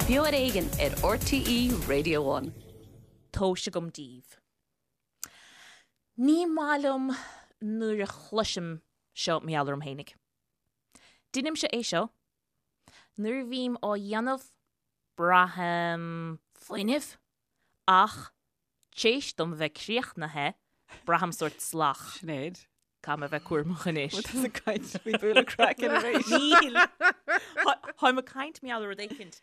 Beo ar Éigean ar RTÉ Radio One. Tomhais agam daoibh. Ní maith liom nuair a chloisim seo mar gheall orm fhéinig. Deinimse é seo. Nuair a bhím á dhéanamh, braithim fuinneamh, ach T'éis dom bheith críochnaithe, braithim sórt salach. Sinéad. Caithfidh mé bheith cúramach anois. Bhfuil tusa ag caint faoi bualadh craicinn arís? Níl. Táim ag caint mar gheall ar rud éicint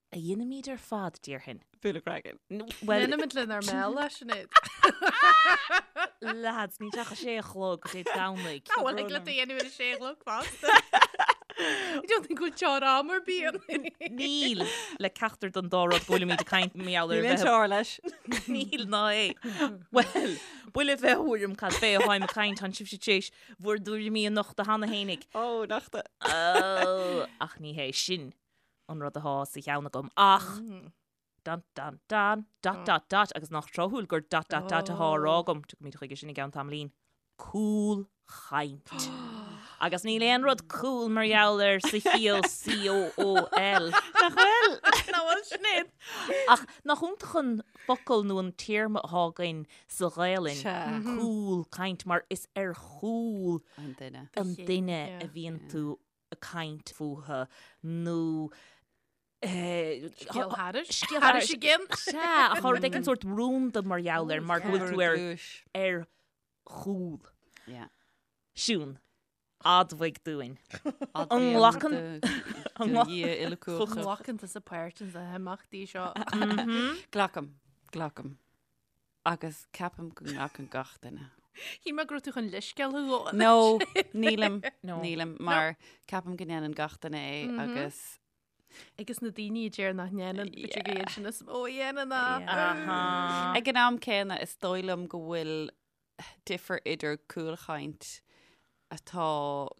a dheinimid ar fad, déarfainn. Bualadh craicinn. Bhuel. Deinimid lenár mbéal é, Sinéad. Lads, níl sé ach a sé a chlog Dé Domhnaigh. Ná bhfuil ag le do dhéanamh ar a sé a chlog fosta. I don't think go bhfuil teora am ar bith ann. Níl le ceachtar den dá rud go bhfuilimid ag caint mar gheall ar Níl aon bheith teora leis. Níl ná é. Bhuel, buille bheith thuairim cad fé atháim ag caint, tánn sibhse tar éis bhur dtuairimí a nochtadh cheana fhéinig. Ó, nochta. Ó, ach ní hé sin an rud athá sa cheann agam. Ach Dun dun dun, dot dot dot, agus nach tráthúil gur dot dot dot athá á rá agam, tiocfaimid chuige sin i gceann tamaillín. Cúlchaint. Agus níl aon rud cool mar gheall air sa chiall C-O-O-L. Nach bhfuil? Nach bhfuil, Sinéad? Ach nach iontach an focal nó an téarma athá againn sa Ghaelainn, cúlchaint, mar is ar chúl An duine. an duine a bhíonn tú ag caint fúthu nó Scéal thairis. Scéal thairis again. Sea, ach tá rud éigin sórt rúnda mar gheall air mar go bhfuil tú ar ar chúl. Yeah. Siún, admhaigh dúinn. An nglacann An nglacann tusa páirt in na himeachtaí seo? Glacaim, glacaim. Agus ceapaim go nglacann gach duine. Shíl mé go raibh tú chun leithscéal a ghabháil. No, nílim, nílim, mar ceapaim go ndéanann gach duine é agus Agus na daoine a deir nach ndéanann, b'fhéidir gur iad sin is mó a dhéanann é. Ag an am céanna, is dóigh liom go bhfuil difear idir cúlchaint atá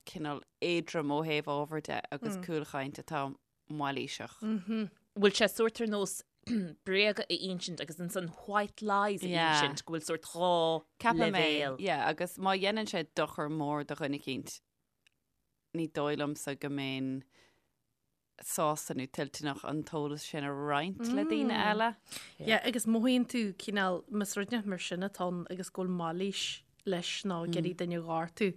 cineál éadrom ó thaobh ábhair de agus cúlchaint atá mailíseach. Bhfuil sé sórt ar nós bréaga a insint agus ansan white lies a insint, go bhfuil sórt dhá Ceapaim é, leibhéal. yeah, agus má dhéanann sé dochar mór do dhuine eicínt, ní dóigh liomsa go mbeinn sásta nó toilteanach an t-eolas sin a roinnt le daoine eile. Yeah, agus mothaíonn tú cineál, más rud mar sin atá ann agus go bhfuil mailís leis nó ag iarraidh duine a ghortú,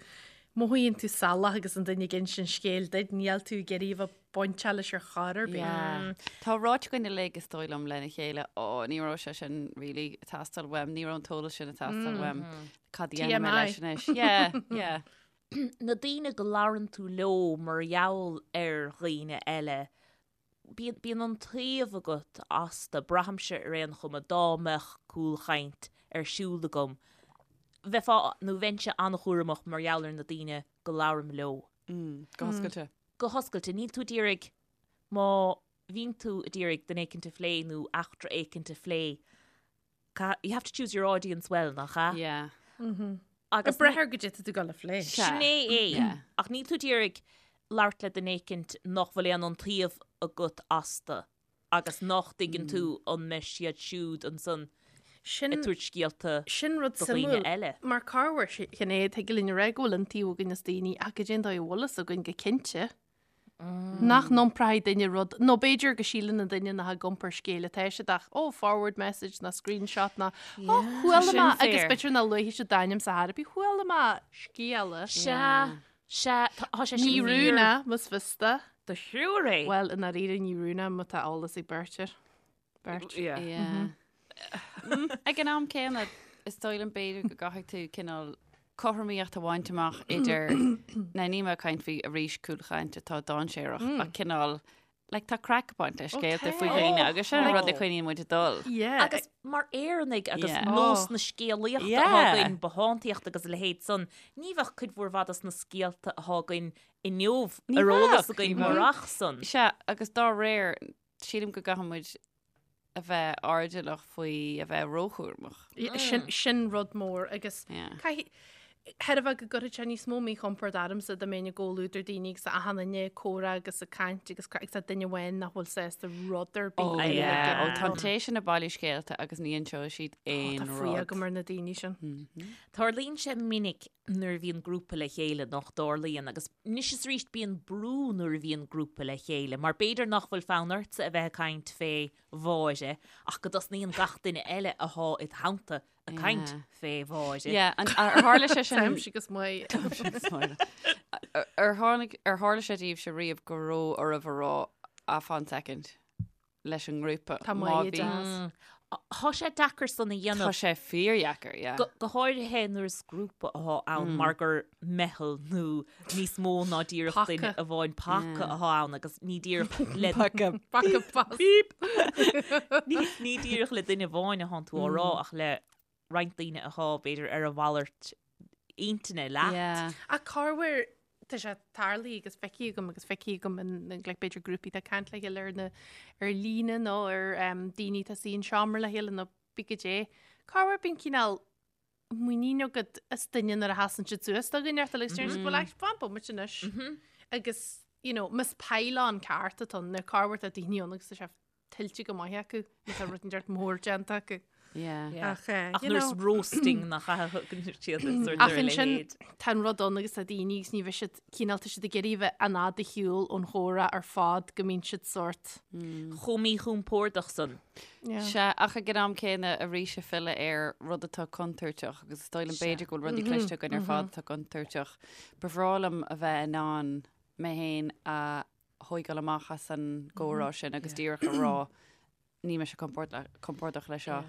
mothaíonn tú salach agus an duine ag insint scéil duit, níl tú ag iarraidh a bheith bainteach leis ar chor ar bith. Yeah. Tá ráite againn uilig is dóigh liom lena chéile, ó, ní raibh sé sin really ag teastáil uaim, ní raibh an t-eolas sin ag teastáil uaim, cad a dhéanfaidh mé leis anois? Yeah, yeah. Na daoine go labhrann tú leo mar gheall ar dhaoine eile, bíonn, bíonn iontaoibh agat astu, braithimse ar aon chuma, dá mbeadh cúlchaint ar siúl agam, bheifeá, nó bheinnse an-chúramach mar gheall ar na daoine go labhraim leo. Go hoscailte. Go hoscailte. Níl tú ag iarraidh, má bhíonn tú ag iarraidh duine éicint a phlé nó eachtra éicint a phlé, You have to choose your audience well, nach ea? Yeah. Agus Ag brath ar goidé tá tú ag gabháil a phlé. Sin é é. Ach níl tú ag iarraidh labhairt le duine éicint nach bhfuil aon iontaoibh agat astu agus nach dtuigeann tú an mbeidh siad siúd ansan Sin ag tabhairt scéalta sin rud do dhaoine suimiúil. eile. Mar corruair, Sinéad, thig linn a rá go bhfuil iontaoibh againn as daoine ach goidé an dóigh a bhfuil fhios againn go cinnte. Nach n-iompróidh duine rud, nó b'fhéidir go síleann an duine nach ag iompar scéil atá siad ach, oh, forward message ná screenshot ná, oh, chuala mé, agus b'fhéidir nach luafaidh siad d'ainm sa chor ar bith, chuala mé scéala. Sea, sea, tá sé sin Ní rún é, más fios do. Do thriúr é. Bhuel, i ndáiríre ní rún é má tá eolas ag beirt air. Beirt. Yeah. Ag an am céanna, is dóigh liom b'fhéidir go gcaithfidh tú cineál cothromaíocht a bhaint amach idir, now níl mé ag caint faoi arís cúlchaint atá dainséarach, ach cineál, like tá craic ag baint le scéalta faoi dhaoine agus sin an rud a choinníonn muid ag dul. Yeah. Agus mar Éireannaigh agus Yeah. nós na scéalaíochta Yeah. atá againn, bothántaíocht agus a leithéid san, ní bheadh cuid mhór mhaith dos na scéalta atá againn inniu Ní ar eolas bheadh, againn ní bheadh. murach san. Sea, agus dá réir, sílim go gcaithfidh muid a bheith airdeallach faoi a bheith róchúramach. Sin, sin rud mór agus caithfidh, chreidfeá go gcuirfeadh sé níos mó míchompord ormsa dá mbeinn i gcomhluadar daoine agus achan duine ag comhrá agus ag caint agus craic agus tá duine amháin nach bhfuil sásta rud ar bith Ó, a yeah. Ó, tá an té sin ag bailiú scéalta agus ní inseoidh siad Ó, aon tá fuath rud. agam ar na daoine sin. Tarlaíonn sé minic. nuair a bhíonn grúpa le chéile nach dtarlaíonn agus anois is arís bíonn brú nuair a bhíonn grúpa le chéile mar b'fhéidir nach bhfuil fonn ortsa a bheith ag caint fé Mháire ach go dtosnaíonn gach duine eile athá id theannta ag caint fé Mháire. Yeah, an ar tharla sé sin Táimse agus Máire. Táimse agus Máire. Ar tháinig ar tharla sé daoibhse riamh go raibh oraibh a rá ah fan second leis an ngrúpa. Tá Má Máire bhí- deas. Tá sé deacair san a dhéanamh. Tá sé fíordheacair, yeah. Go go háirithe nuair is grúpa athá ann mar gur meitheal nó níos mó ná díreach Paca. duine amháin paca athá ann agus ní díreach le Paca. Paca pas. Beep. Ní ní díreach le duine amháin athánn tú á rá ach le roinnt daoine athá b'fhéidir ar a mhalairt intinne leat. Yeah. Ach corruair tá sé tarlaithe agus feicthe agam agus feicthe agam in like, b'fhéidir grúpaí atá ag caint le chéile ar na ar líne nó ar um, daoine atá suí in seomra le chéile nó pé goidé. Corruair bíonn cineál muinín agat as duine nuair a sheasann siad suas do dhuine ort agus deireann siad well actually fan bomaite anois. Agus you know, más pile-on ceart atá ann, nó corruair tá daoine ann agus tá sé tuillte go maith acu, má tá rud inteacht mór déanta acu. Yeah. Yeah. Ach, eh, Ach you nuair is know, roasting nach thugann siad an sórt Ach ar a ansin leithéid. tá an rud ann agus tá daoine agus ní bheidh siad cineál tá siad ag iarraidh a bheith an fhad ar shiúl ón chomhrá ar fad go mbíonn siad sórt. Chomh míchompordach san. Yeah. Sea, ach ag an am céanna arís ag filleadh ar rud atá contúirteach agus is dóigh liom b'fhéidir go bhfuil rudaí cliste againn ar fad atá contúirteach. Ba bhreá liom a bheith in ann mé féin a thóigeáil amach as an gcomhrá sin agus díreach a rá níl mise compordach le seo.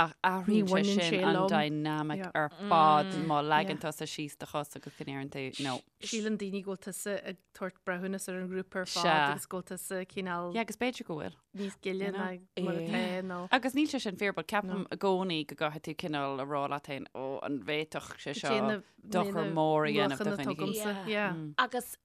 Ach athraíonn sé bhaineann sin sé an liom. dynamic Yeah. ar fad má leagann tusa síos do chos agus go ndeireann tú no. Síleann daoine go bhfuil tusa ag tabhairt breithiúnas ar an ngrúpa ar fad Sea. agus go bhfuil tusa cineál Yeah, agus b'fhéidir go bhfuil. níos gile You know? ná mar atá nó. Agus níl sé sin fíor, but ceapaim i gcónaí go gcaithfidh tú cineál a rá leat féin, ó, an bhféadfadh sé seo dochar mór a dhéanamh do dhuine éicint. Yeah. Yeah. Agus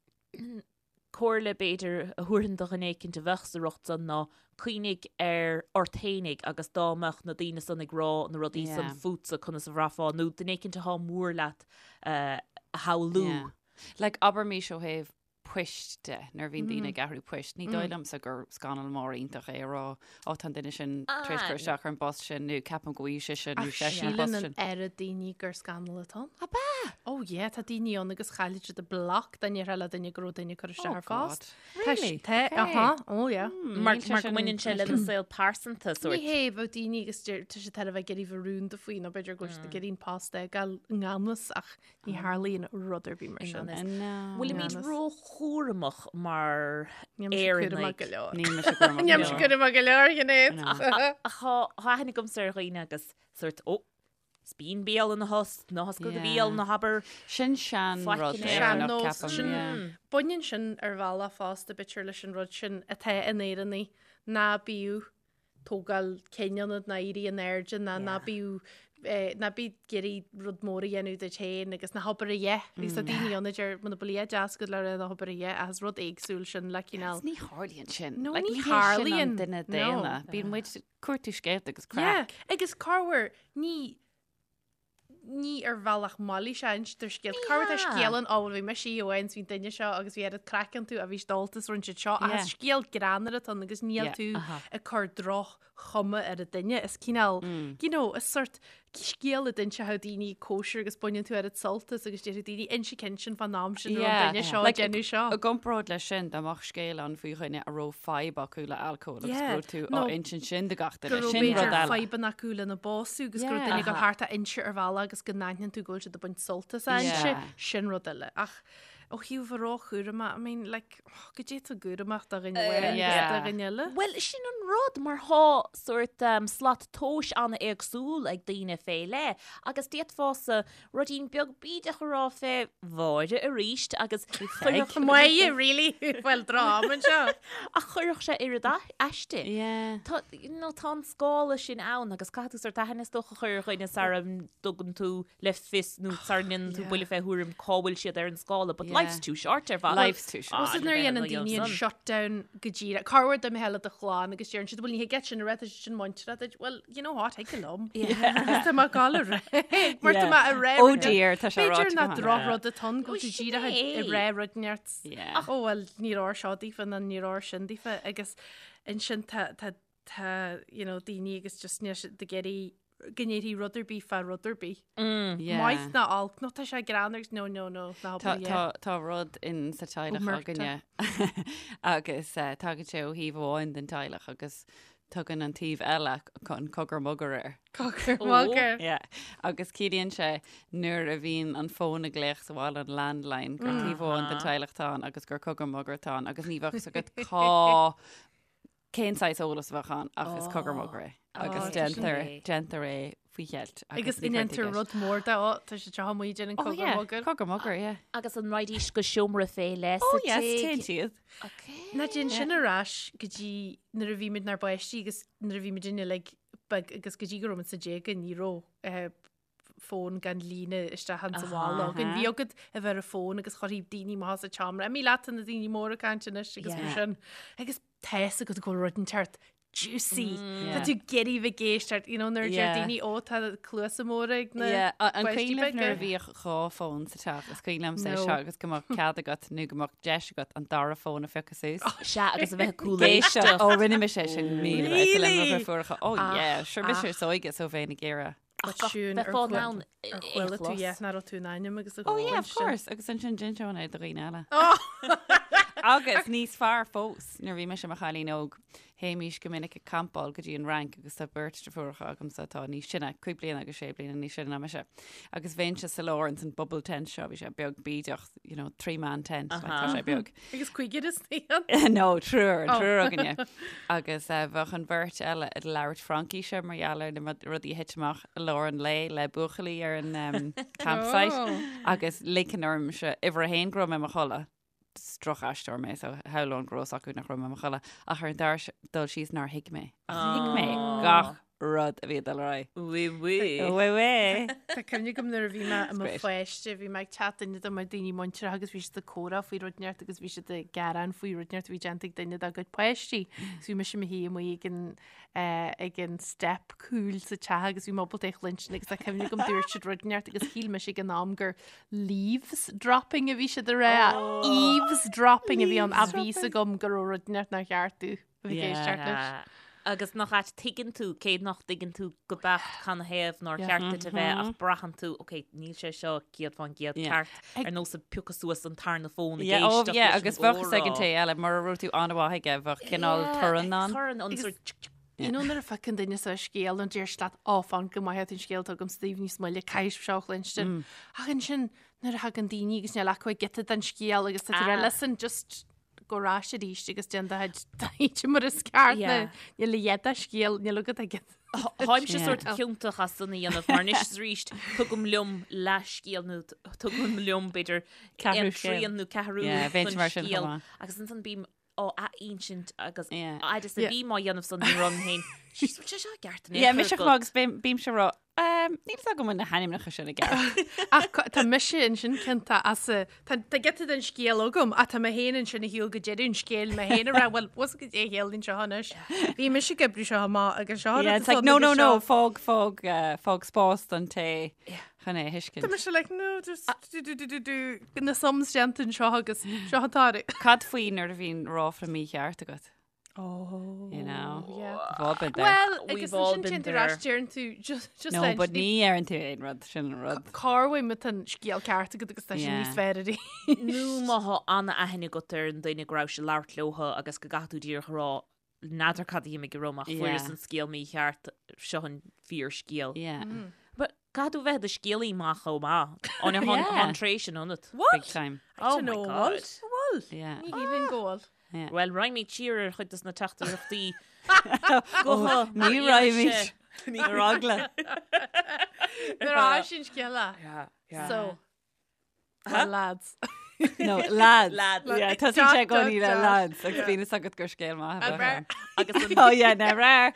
Comhairle, b'fhéidir, a thabharfainn do dhuine éicint a bheadh sa riocht san ná cuimhnigh ar ort fhéinig agus dá mbeadh na daoine san ag rá na rudaí san Yeah. fútsa conas a bhraithfeá nó duine éicint athá mór leat a shamhlú. Yeah. Like, abraimis ó thaobh poist de, nuair a bhíonn daoine ag athrú poist, ní dóigh liomsa gur scannal mór iontach é a rá, ó tá an duine sin tar éis Ah, cur isteach ar an bpost sin nó ceapaim go bhfaighidh sise nó Ach seisean an síleann post an sin. oiread daoine gur scannal atá ann. Ab ea? Oh yeah, tá daoine ann agus chaillfidh siad a bloc dá ndéarfá le duine go raibh duine ag cur isteach Oh ar phost. God. Really? Tá, Okay. aha, oh yeah. Mar Níl sé mar go sin mbaineann sé lena saol pearsanta Ní sórt. hé bheadh daoine agus deir- tá siad thar a bheith ag iarraidh bheith rúnda faoi nó b'fhéidir go bhfuil siad ag iarraidh an post a fhágáil i ngan fhios ach ní tharlaíonn rud ar bith mar sin. ngan fhios. No. Bhfuilimid Ngan fhios. róchúramach mar Níl mise cúramach Éireannaigh? go leor. Níl mise cúramach Níl go mise leor. cúramach go leor, Sinéad. No. Ach tá tá aithne agamsa ar dhaoine agus sórt, ó, Spín béal ina thost, ná hoscail do bhéal, ná habair. Sin sean rud Faic in Éireannach, Sean-nós, ceapaim, sin- yeah. Baineann sin ar bhealach fosta b'fhéidir leis an rud sin atá in Éireannaigh, ná bíodh tógáil cinn ionat ná éirí in airde ná ná bíodh eh, ná bí ag iarraidh rud mór a dhéanamh duit féin agus ná habair a dhath. Agus tá daoine ann a deir muna bhfuil a dhath deas agat le rá ná habair a dhath ach is rud éagsúil sin le cineál. Agus ní tharlaíonn sin. No, Like, ní ní hé sin an tharlaíonn. duine No. daonna. Bíonn muid cuartú scéalta agus Yeah, craic. agus corruair ní ní ar bhealach mailíse a instear scéal. Corruair tá Yeah. scéal ann, ó bhuel bhí mise amháin is bhí an duine seo agus bhí oiread craic iontu a bhí siad ólta is rinne siad seo ach Yeah. is scéal greannmhar atá ann agus níl Yeah. tú Aha. ag cur droch-chuma ar an duine. Is cineál, you know, is sort scéal a d'inseodh daoine ag cóisir agus baineann tú oiread sult as agus déarfaidh daoine inse ceann sin fán am sin raibh an duine seo ag Like, déanamh seo. I gcomparáid leis sin, dá mbeadh scéal ann faoi dhuine a raibh fadhb acu le alcól agus Yeah. go raibh tú á Nó insint sin do gach go duine, raibh sin rud b'fhéidir eile. fadhbanna acu lena bpósadh agus go raibh Yeah. duine ag dul thart á inse ar bhealach agus go n-aithníonn tú go bhfuil siad ag baint sult as a inse, Yeah. sin rud eile. Ach ó thaobh a róchúramach, I mean, like, oh, goidé tá cúramach do dhuine amháin agus Yeah. do dhuine eile. Bhuel, sin an rud, mar thá sórt um, slat tomhais an-éagsúil ag daoine fé leith, agus d'fhéadfása ruidín beag bídeach a rá fé Mháire aríst agus chuirfeadh Máire, really? Bhuel, drám anseo. ach chuirfeadh sé oiread aisti. Yeah. Tá, you know, tá an scála sin ann agus caithfidh tú sórt aithne is dócha a chur ar dhuine sara dtugann tú le fios nó sara ndéanann tú Yeah. buille fé thuairim cá bhfuil siad ar an scála, but Yeah. life's too short ar mhaith. Life's too short. Is nuair a dhéanann daoine an shutdown go díreach. Corruair dá mbeifeá le do chlann agus deireann siad, bhuel ní thig leat sin a rá, tá sé sin muinteartha duit. Well, you know what, thig liom. Agus tá mé ag gabháil a rá. Mar tá mé ag rá Oh rud dear, tá sé B'fhéidir ráite nach go drochrud atá ann go Ó, bhfuil tú sin díreach é. ag rá rud neart. Yeah. Oh well, ní raibh seo daofa ná ní raibh sin daofa agus ansin tá tá tá you know daoine agus just níl siad ag iarraidh. go ndéarfaí rud ar bith fá rud ar bith. Yeah. Maith ná olc, nó tá sé greannmhar agus no, no, no, ná Tá, hobair, yeah. tá, tá rud in sa teaghlach Omerta. againne agus eh, tagann sé ó thaobh amháin den teaghlach agus tugann an taobh eile an cogar mogar air. Cogar Ó. mogar. Yeah. Agus ciallaíonn sé nuair a bhíonn an fón ag glaoch sa bhaile an landline gur taobh amháin den teaghlach atá ann agus gur cogar mogar atá ann agus ní bheadh fhios agat cá cén saghas eolas a bheadh ann ach is cogar mogar é agus Oh, déantar sin é. déantar é faoi cheilt Agus ní chuirtear ndéantar i gceist. rud mór de, ó, tá sé seo amuigh déanann Oh, cogar yeah, mogar. Cogar mogar, yeah. Agus an raghaidís go seomra fé leith Oh sa yes, tigh? téann siad. Okay. Ná déan sin ar ais go dtí nuair a bhí muid inár bpáistí agus nuair a bhí muid uilig beag agus go dtí go raibh muid sna déaga ní raibh eh, fón gan líne isteach insa bhaile againn. Bhí agat a bheith ar an fón agus chuirfí daoine amach as an tseomra. Imigh leat na daoine móra ag caint anois agus mar Yeah. sin. Agus tá fhios agat go bhfuil rud inteacht juicy. Yeah. Tá tú ag iarraidh bheith ag éisteacht, you know, nuair a deir Yeah. daoine ó tá cluasa móra ag na Yeah, an páistí cuimhin libh nuair a beaga. bhíodh dhá fón sa teach, is cuimhin liomsa é No. seo agus go mbeadh cead agat nó go mbeadh deis agat an dara fón a phiocadh suas. Sea, agus a bheith ag Éisteacht, cúléisteacht. ó rinne mise é sin míle Really? le mo dheirfiúracha. Oh Ach, yeah, sure mise ach. is óige so bheinn ag iarraidh. But siún Bheith ar fán chuala- ann ar chuala tú yeah, nach raibh tú in ainm agus a Oh yeah, of chluinstin. course, agus ansin d'inseoinn é do dhaoine eile. Oh! Agus níos fearr fós, nuair a bhí mise i mo chailín óg, théimís go minic ag campáil go dtí an Fhrainc agus tá beirt deirfiúracha agamsa atá níos sine, cúig bliana agus sé bliana níos sine ná mise. Agus bheinnse sa lár ins an bubble tent seo, bhí sé beag bídeach, you know, three man tent, like, tá sé beag. Agus cúigear istigh ann? No, triúr, Oh. triúr againne. Agus eh, bheadh an bheirt eile ag labhairt Fraincise mar gheall ar na rudaí a thit amach i lár an lae le buachaillí ar an um, campsite. Oh. Agus ligfinn ormsa uimhir a haon go raibh mé i mo chodladh. Is drochaisteoir mé, so shamhlóinn go raibh fhios acu nach raibh mé i mo chodladh. Ach ar an dara dul síos nár thuig mé. Ach thuig mé gach rud a bhí ag dul ar aghaidh. Oui, oui. Oui, oui. Tá cuimhne agam nuair a bhí mé i mo great. pháiste, bhí mé ag teacht duine de mo daoine muinteartha agus bhí siad ag comhrá faoi rud inteacht agus bhí siad ag gearán faoi rud inteacht a bhí déanta ag duine dá gcuid páistí. Agus bhí mise i mo shuí amuigh ag an, eh, ag an step cúil sa teach agus bhí mé ábalta é a chluinstin agus tá cuimhne agam dúirt siad rud inteacht agus shíl mise ag an am gur leaves dropping a bhí siad a rá. Eaves dropping a bhí ann a bhí fhios agam go raibh rud inteacht nár cheart domh a bheith ag éisteacht leis. Agus nach ait tuigeann tú, cé nach dtuigeann tú go beacht canathaobh nár Yeah. cheart duit a bheith ach braitheann tú, ok, níl sé seo 100% Yeah. ceart ar nós ag piocadh suas an tarna fón ag Yeah, oh, éisteacht yeah, leis an agus bheadh fhios ag an gcomhrá. té eile, mura raibh tú an-mhaith aige, bheadh cineál Yeah, torann ann. Torann an Agus- sort tsk, tsk. You know nuair a phiocann duine suas scéal nó deir siad leat, "Ó, fan go maith an scéal atá agam sa taobh níos moille, caithfidh seo a chluinstin. Ach ansin nuair a thagann daoine agus níl acu ach giota den scéal agus tá tú Ah. ag rá, listen, just gabh ar ais arís agus déan do chuid taighde mar is ceart Yeah. níl a dhath de scéal, níl agat agat. Táimse Yeah. sort ciontach as san a dhéanamh mar anois is arís tugaim liom leathscéal nó tugaim liom b'fhéidir Ceathrú aon scéal. trian nó ceathrú Yeah, bheinn den mar sin chomh scéal. maith. agus ansan bím á ath-insint agus Yeah. fhad is a Yeah. bhím á dhéanamh san ní raibh féin. Jeez, bhfuil sé seo ceart in Yeah, aon mise chor chomh maith agus bím- bímse ag rá, um, níl fhios agam an na hainmneacha sin i gceart. Ach tá mise ansin ciontach as a tá tá giota den scéal agam ach tá mé féin ansin ag siúl go deireadh an scéil mé féin ag rá bhuel bhfuil go dé chéal anseo anois. Bhí mise ag oibriú seo amach agus seo Yeah, it's like, no, no, no, fág, fág, uh, fág spás don té chun é a thuiscint. Tá mise like no just do do do do do na sums déanta anseo agus seo atá. Cad faoi nuair a bhíonn ráfla mícheart agat? Oh, You know. yeah. We've all been there. Well, We've agus all ansin been téann tú there. ar ais deireann tú just just no, leis but ní ní deireann tú aon rud, sin an rud. Cá bhfuil an scéal ceart agat agus tá sin Yeah. níos fearr arís. Nó má thá an-aithne agat ar an duine go raibh sé ag labhairt leotha agus go gcaithfidh tú díreach a rá n'fheadar cad a bhím ag rá ach fuaireas Yeah. an scéal mícheart seo an fíorscéal. Yeah. But caithfidh tú bheith i do scéalaí maith chomh maith. An Yeah. an tréith sin ionat. Big time. Oh my know, God. Bhfuil? Yeah. Ní shílim go bhfuil. Yeah. Well, raghaimid siar ar chuid dos na teachtaireachtaí. Oh, ní raghaimid. Ar eagla. Nuair a sin scéala. So, well, lads. No, lads. Lads. Yeah, tá sé Dot, gcónaí le dot, dot. lads agus bíonn fhios agat gur scéal maith a An bheadh ann. Agus an Oh yeah, never.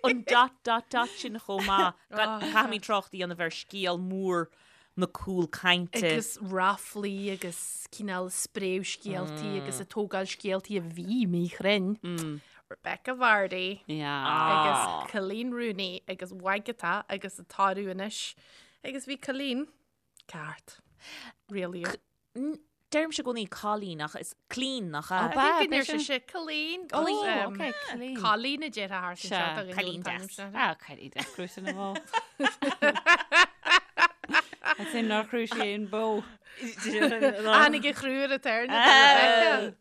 an dot dot dot sin chomh maith. Oh. Caithfimid trácht a dhéanamh ar scéal mór na cúlchainte. Agus ráflaí agus cineál spréadh scéaltaí agus ag tógáil scéaltaí a bhí míchruinn. Rebecca Vardy Yeah. agus Coleen Rooney agus Wagatha agus atá anois. Agus bhí Coleen ceart. Really. Deirimse i gcónaí Colleen ach is Clean nach ea? I think go ndeir sise Colleen. Oh, ok, Colleen. Colleen a déarfá thart anseo do dhuine Colleen an t-ainm deas. sin. Ah, Colleen deas, crúite na mbó. Is sin nár chrú sí aon bó. Tháinig a chrú ar a tairne do Rebecca.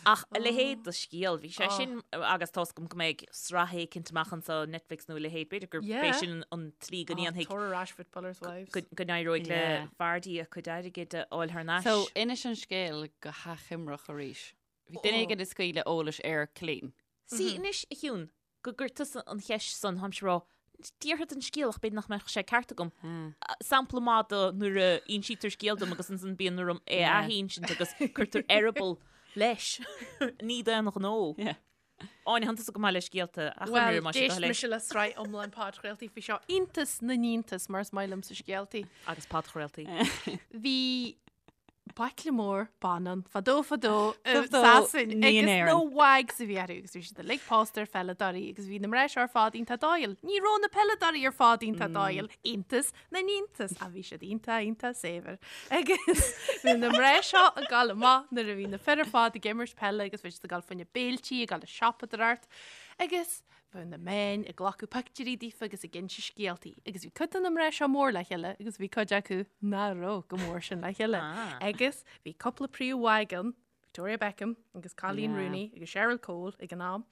Ach a leithéid de scéal, bhí sé sin, agus tá's agam go mbeidh sraith éicint amach anseo, Netflix nó a leithéid, b'fhéidir gurb é sin an tslí go ndéanfaidh, Tabhair ar ais Footballers' Wives. go n-éireoidh le Vardy a cuid airgid a fháil thar n-ais. So, inis an scéal go hachoimreach arís. Bhí duine éigin ag scaoileadh eolais ar Colleen. See, anois, a Shiún, go gcuir tusa an cheist san, táimse ag rá, déarfad an scéal ach b'fhéidir nach mbeadh sé ceart agam. Sampla maith de nuair a insítear scéal dom agus ansan bíonn orm é a athinsint agus cuirtear eireaball leis. Ní d'aon ghnó. Áine, tánn tusa go maith le scéalta a Bhuel, achoimriú más é do d'éist thoil é. mise le sraith iomlán podchraoltaí faoi seo, iontas na n-iontas mar is maith liomsa scéaltaí. Agus podchraoltaí. Bhí baicle mór ban ann fadó fadó i Fadó, Sasain ní in agus Éirinn. na Wags a bhí orthu agus bhí siad uilig pósta ar pheileadóirí agus bhí na mná seo ar fad iontach dóighiúil. Ní raibh na peileadóirí ar fad iontach dóighiúil, iontas na n-iontas, ach bhí siad iontach iontach saibhir. Agus bhí na mná seo ag gabháil amach nuair a bhí na fir ar fad ag imirt peile agus bhí siad ag gabháil fá choinne béiltí, ag gabháil ag siopadóireacht agus Bheadh na meáin ag glacadh pictiúirí daofa agus ag inse scéaltaí, agus bhí cuid de na mná seo mór le chéile agus bhí cuid acu nach raibh go mór sin le chéile. Agus bhí cúpla príomh-wag ann, Victoria Beckham agus Coleen Rooney agus Cheryl Cole ag an am.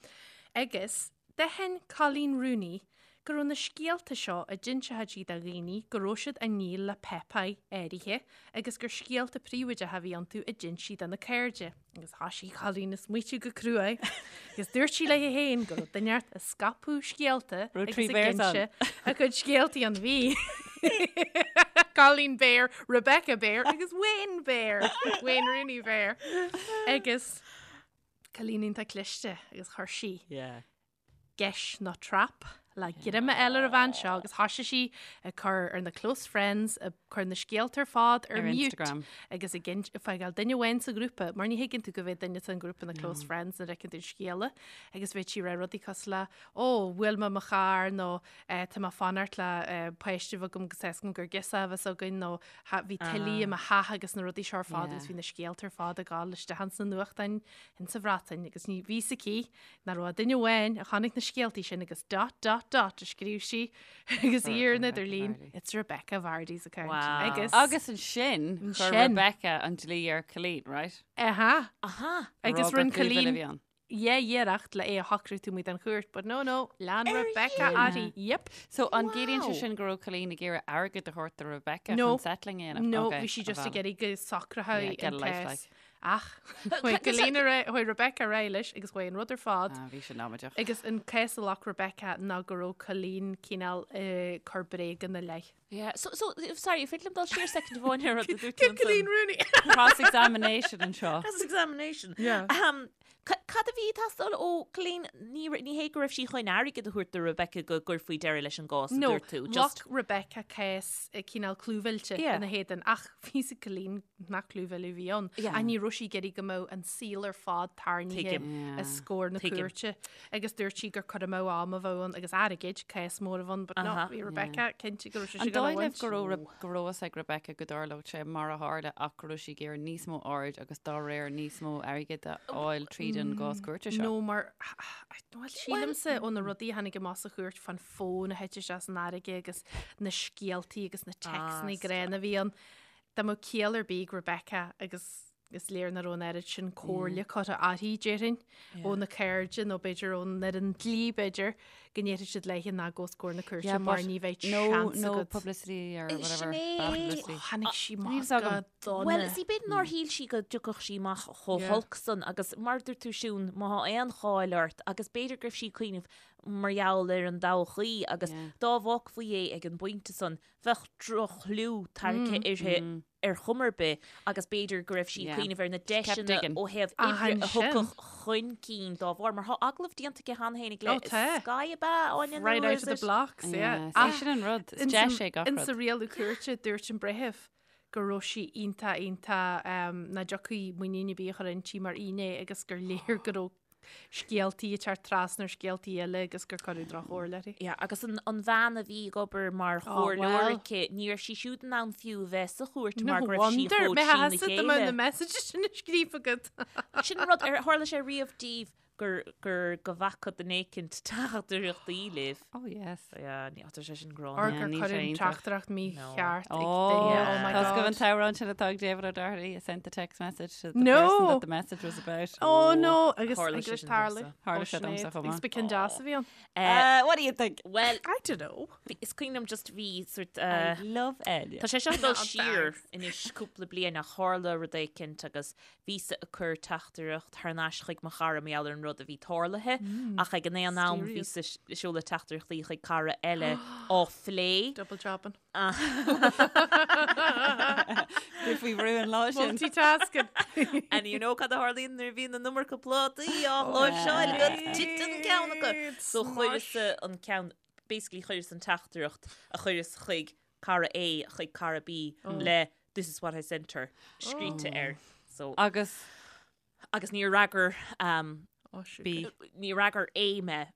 Agus d'aithin Coleen Rooney go raibh na scéalta seo a d'inseodh sí do dhaoine go raibh siad á ndíol le páipéir áirithe agus gur scéalta príobháideacha a bhí iontu a d'inis sí do na cairde. Agus thoisigh Colleen ag smaoitiú go cruaidh agus dúirt sí léi féin go raibh duine inteacht ag scaipeadh scéalta Raibh agus trí ag Bears ann. inse a cuid scéaltaí ann. Bhí Colleen Bear, Rebecca Bear agus Wayne Bear, Wayne Rooney Bear. Agus Colleen iontach cliste agus chuir sí Yeah. geis nó trap le greim a fháil ar an bhean seo agus thoisigh sí ag cur ar na close friends, ag cur na scéalta ar fad ar Ar mute Instagram. agus ag ag fágáil duine amháin sa ghrúpa, mar ní thuigeann tú go bhféad duine san ghrúpa na close friends nuair a fheiceann tú scéala agus bheadh sí ag rá rudaí cosúil le ó, bhuail mé mo charr nó eh, tá mé ag fanacht le eh, páiste a bheith agam agus tá a fhios agam gur girseach a bheas againn nó "Ha, bhí tuile i mo theach agus na rudaí seo ar fad agus bhí na scéalta ar fad ag gabháil isteach ins na nuachtáin insa Bhreatain agus ní bhí a fhios aici nach raibh ach duine amháin a chonaic na scéaltaí sin agus dot dot dot a scríobh sí agus í ar an idirlíon It's Rebecca Vardy's account. Wow. Agus Agus ansin chuir Ansin. Rebecca an dlí ar Colleen, right? Aha. Aha. Agus Rá gur rinne clíomh eile a Colleen bhí ann. yeah iarracht le é a shocrú taobh amuigh den chúirt, but no no, lean Rebecca uirthi. Yep. So an gciallaíonn sé Wow. sin go raibh Colleen ag iarraidh airgead a thabhairt do Rebecca No. chun settling a dhéanamh? No, Okay, bhí sí just a ag iarraidh go socrófaí Yeah, get an a life, cás. like. Ach, chuaigh Colleen ar aghaidh, chuaigh Rebecca ar aghaidh leis agus chuaigh an rud ar fad. Ah, bhí sin amaideach. Agus an cás a ghlac Rebecca ná go raibh Colleen cineál ag cur bréaga ina leith. Yeah, so, so, sorry, féidir liom dul siar second amháin ar rud a dúirt tú Cé Colleen ansan? Rooney? Cross-examination anseo. Cross-examination. Yeah. Um, cad a bhí ag teastáil ó Colleen? Ní, ní hé go raibh sí chun airgead a thabhairt do Rebecca go gcuirfí deireadh leis an gcás, a No, dúirt tú. Just, ghlac Rebecca cás eh, cineál clúmhillte Yeah. ina héadan ach bhí a fhios ag Colleen nach clúmhilleadh a bhí ann. Yeah. Ach ní raibh sí ag iarraidh go mbeadh an saol ar fad tarraingthe Tuigim. os comhair na Tuigim. cúirte agus dúirt sí gur cur amú ama a bheadh ann agus airgid, cás mór a bheadh ann, but no, Aha. bhí Rebecca cinnte go raibh sí An ag dul a dóigh libh bhaint. go raibh Re- go raibh fhios ag Rebecca go dtarlódh sé mar a tharla ach go raibh sí ag iarraidh níos mó aird agus dá réir níos mó airgid a fháil tríd an gcás cúirte seo? No, mar bhuel, sílimse ó na rudaí a tháinig amach sa chúirt fán fón a thit isteach san fharraige agus na scéaltaí agus na téacsanna gránna a bhí ann. Dá mbeadh ciall ar bith ag Rebecca agus is léir nach raibh an oiread sin comhairle curtha uirthi, déarfainn, ó na cairde nó b'fhéidir ón fhoireann dlí, b'fhéidir, go ndéarfadh siad léi ná gabh os comhair na cúirte mar ní bheidh no, seans no agat. publicity or Sin whatever. é. Bad publicity. Ó, tháinig sí Níl amach fhios agam. go dona. Well, see, b'fhéidir nár shíl sí go dtiocfadh sí amach chomh Yeah. holc san agus mar a dúirt tú Siún, má thá aon cháil ort agus b'fhéidir go raibh sí ag cuimhneamh mar gheall ar an dtodhchaí agus Yeah. dá bhfágfaí é ag an bpointe san bheadh droch-chlú tarraingthe uirthi ar chuma ar bith agus b'fhéidir go raibh sí ag Yeah. cuimhneamh ar na She kept deiseanna digging. ó thaobh Ach oibre a ansin. thiocfadh chun cinn dá bharr, mar thá agallamh déanta aici cheana féin le Ó, tá. Sky ab ea, Áine, nó Right out is of the it? blocks, yeah. Yeah, Ach, see, sin an rud. Is ins deis an- é gach Ins rud. a rialú cúirte dúirt an breitheamh go raibh sí iontach iontach nach dtiocfaí muinín ar bith a chur inti mar fhinné agus gur léir go raibh. scéaltaí ag teacht trasna ar scéaltaí eile agus gur cuireadh droch-chomhairle uirthi. Yeah, agus an, an bhean a bhí ag obair mar chomhairleoir well. aici, ní raibh sí siúd in ann fiú a bheith sa chúirt No mar go raibh sí wonder, chomh mé trína theasa do na chéile. messages sin a scríofa agat. Sin an rud, ar tharla sé riamh daoibh gur, gur, go bhfaca duine éicint teachtaireachtaí libh. Oh yes. Yeah, ní tá sé sin gránna. Or Yeah, gur níl sé cuireadh iontach. teachtaireacht mícheart ag Oh, duine. Oh my Tá go God. an t-amhrán sin atá ag David O'Doherty I sent the text message to the No. person that the message was about. Oh no, agus Tharla agus sé sin tarla. domsa. Tharla sé domsa chomh maith. Agus b'cinn deas a bhí ann. Uh, what do you think? Well, I don't know. is cuimhin liom just bhí sort I uh, love Enya. Tá sé seo ag dul Oh, siar thanks. anois cúpla bliain ach tharla rud éicint agus bhíosa ag cur teachtaireacht thar n-ais chuig mo chara mar gheall ar an rud a bhí tarlaithe ach ag an aon am Mysterious. bhíosa ag seoladh teachtaireachtaí chuig cara eile á phlé. Double jobbing. Bhí faoi bhrú an lá sin. Multitasking. And you know cad a tharlaíonn nuair a bhíonn an iomarca plátaí á láimhseáil agat titeann ceann acu. So chuireas an ceann, basically chuireas an teachtaireacht a chuireas chuig cara A chuig cara B le this is what I sent her scríte air. So Agus agus níor fhreagair um, Oh, sugar. B. níor fhreagair A mé.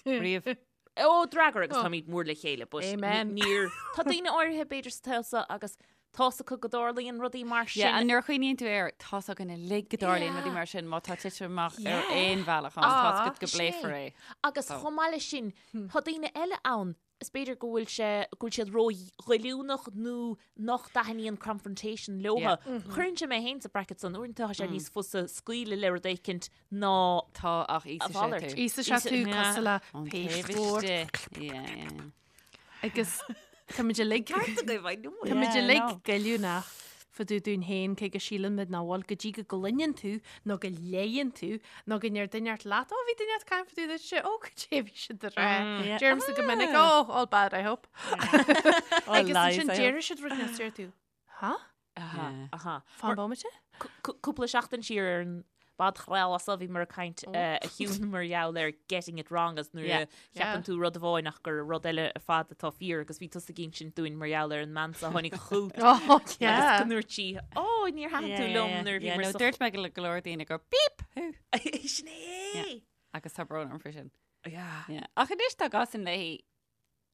Riamh. Ó d'fhreagair agus táimid mór le chéile, but Amen. níor tá daoine áirithe b'fhéidir sa tsaol seo agus tá's acu go dtarlaíonn rudaí mar sin. Yeah, and nuair a chuimhníonn tú air, tá's againn uilig go dtarlaíonn rudaí mar sin má tá titim amach ar aon bhealach ann, tá's agat go Sin é. bpléifear é. Agus chomh maith leis sin, tá daoine eile ann, is b'fhéidir go bhfuil sé, go bhfuil siad ró-ghoilliúnach nó nach dtaitníonn confrontation leotha. Cuireann sé mé féin sa bracket san, uaireanta tá sé níos fusa scaoileadh le rud éicint ná Tá ach A íosfaidh sé mhalairt. tú. Íosfaidh sé tú Yeah. cosúil le Ón taobh pasteboard. istigh. Yeah, yeah. Agus táimid uilig Tá Táimid Yeah, uilig no. goilliúnach fá dtaobh dúinn féin cé go síleann muid nach bhfuil go dtí go gcluineann tú nó go léann tú nó go ndeir duine ort leat, Ó bhí duine ort caint fá dtaobh duitse, ó goidé a bhí siad a rá. Yeah. Deirimse go minic, oh, all bad, I hope. All Agus lies, ansin I hope. deir siad rud níos deir tú, Huh? Aha, Yeah. aha. Fan bomaite? Cúpla seachtain siar ar an bpodchraoladh seo bhíomar ag caint a Shiún mar gheall ar getting it wrong agus nuair a Yeah. cheapann tú rud amháin ach gur rud eile ar fad atá fíor agus bhí tusa ag insint dúinn mar gheall ar an mbean seo a tháinig chugat Oh, agus yeah. go ndúirt sí, Ó, níor thaitin tú liom nuair a Yeah, bhíomar no, sa dúirt mé go go leor daoine gur beep thú. Sin é! Agus tá brón orm faoi sin. Yeah. Yeah. Ach anois tá gasan léi,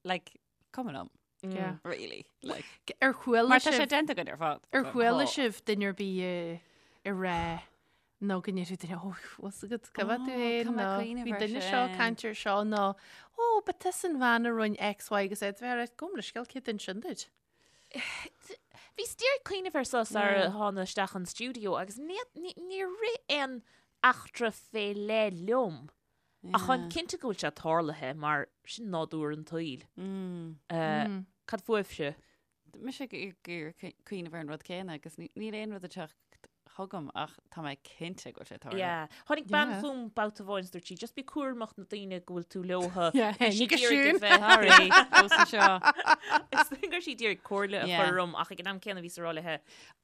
like, cuma liom, Yeah. really. Like, Ar chuala mar tá sé sibh déanta againn ar fad. ar chuala Tá. sibh duine ar bith ag rá nó go ndéarfaidh duine, ó, bhfuil agat go bhfuil tú Ó, féin tá mé nó cuimhneamh bhí ar duine seo sin. caint ar seo nó ó, ba tusa an bhean a rinne X, Y agus Z bheith ar gabh mo leithscéal cé duine sin duit. Bhíos díreach ag cuimhneamh air seo sar a thána isteach an stiúideo agus níor rith aon eachtra fé leith liom. Ach táim cinnte go bhfuil sé tarlaithe mar sin nádúr an tsaoil. Cad fúibhse? Mise ag iarraidh cuimhneamh ar an rud céanna agus níl aon rud ag teacht chugam ach tá mé cinnte go bhfuil sé tarlaithe. Yeah. Tháinig bean Yeah. chugam babhta amháin is dúirt sí, just bí cúramach na daoine go bhfuil tú leotha. Yeah, Bhí sí ní go ag iarraidh siún. a bheith- Sorry, fós anseo. Is dóigh go raibh sí ag iarraidh comhairle a Yeah. chur orm ach ag an am céanna bhíos ag rá léithe,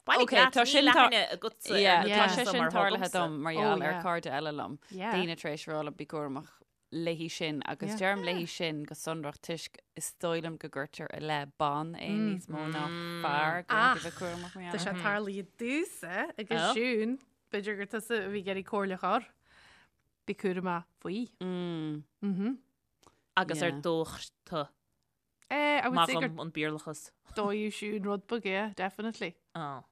Bailigh Okay, leat, tá níl sin tar- aithne agatsa ar Yeah, na tá Yeah. sé daoine seo sin mar thá tarlaithe agamsa. dom mar Oh, gheall ar yeah. cairde eile liom. Yeah. Daoine tar éis rá liom bí cúramach léi sin agus Yeah. deirim léi sin go sonrach toisc is dóigh liom go gcuirtear i leith ban é níos mó ná fear go Ach, bhfuil bheith cúramach mar Tá gheall sé air. tarlaithe domhsa agus Oh. Siún, b'fhéidir gur tusa a bhí ag iarraidh comhairle a chur. Bí cúramach faoi. Mm. Mhm. Agus ar Yeah. dódh tú Eh, I would say gur Maith an Béarlachas. dódh Siún rud beag, yeah, definitely. Oh.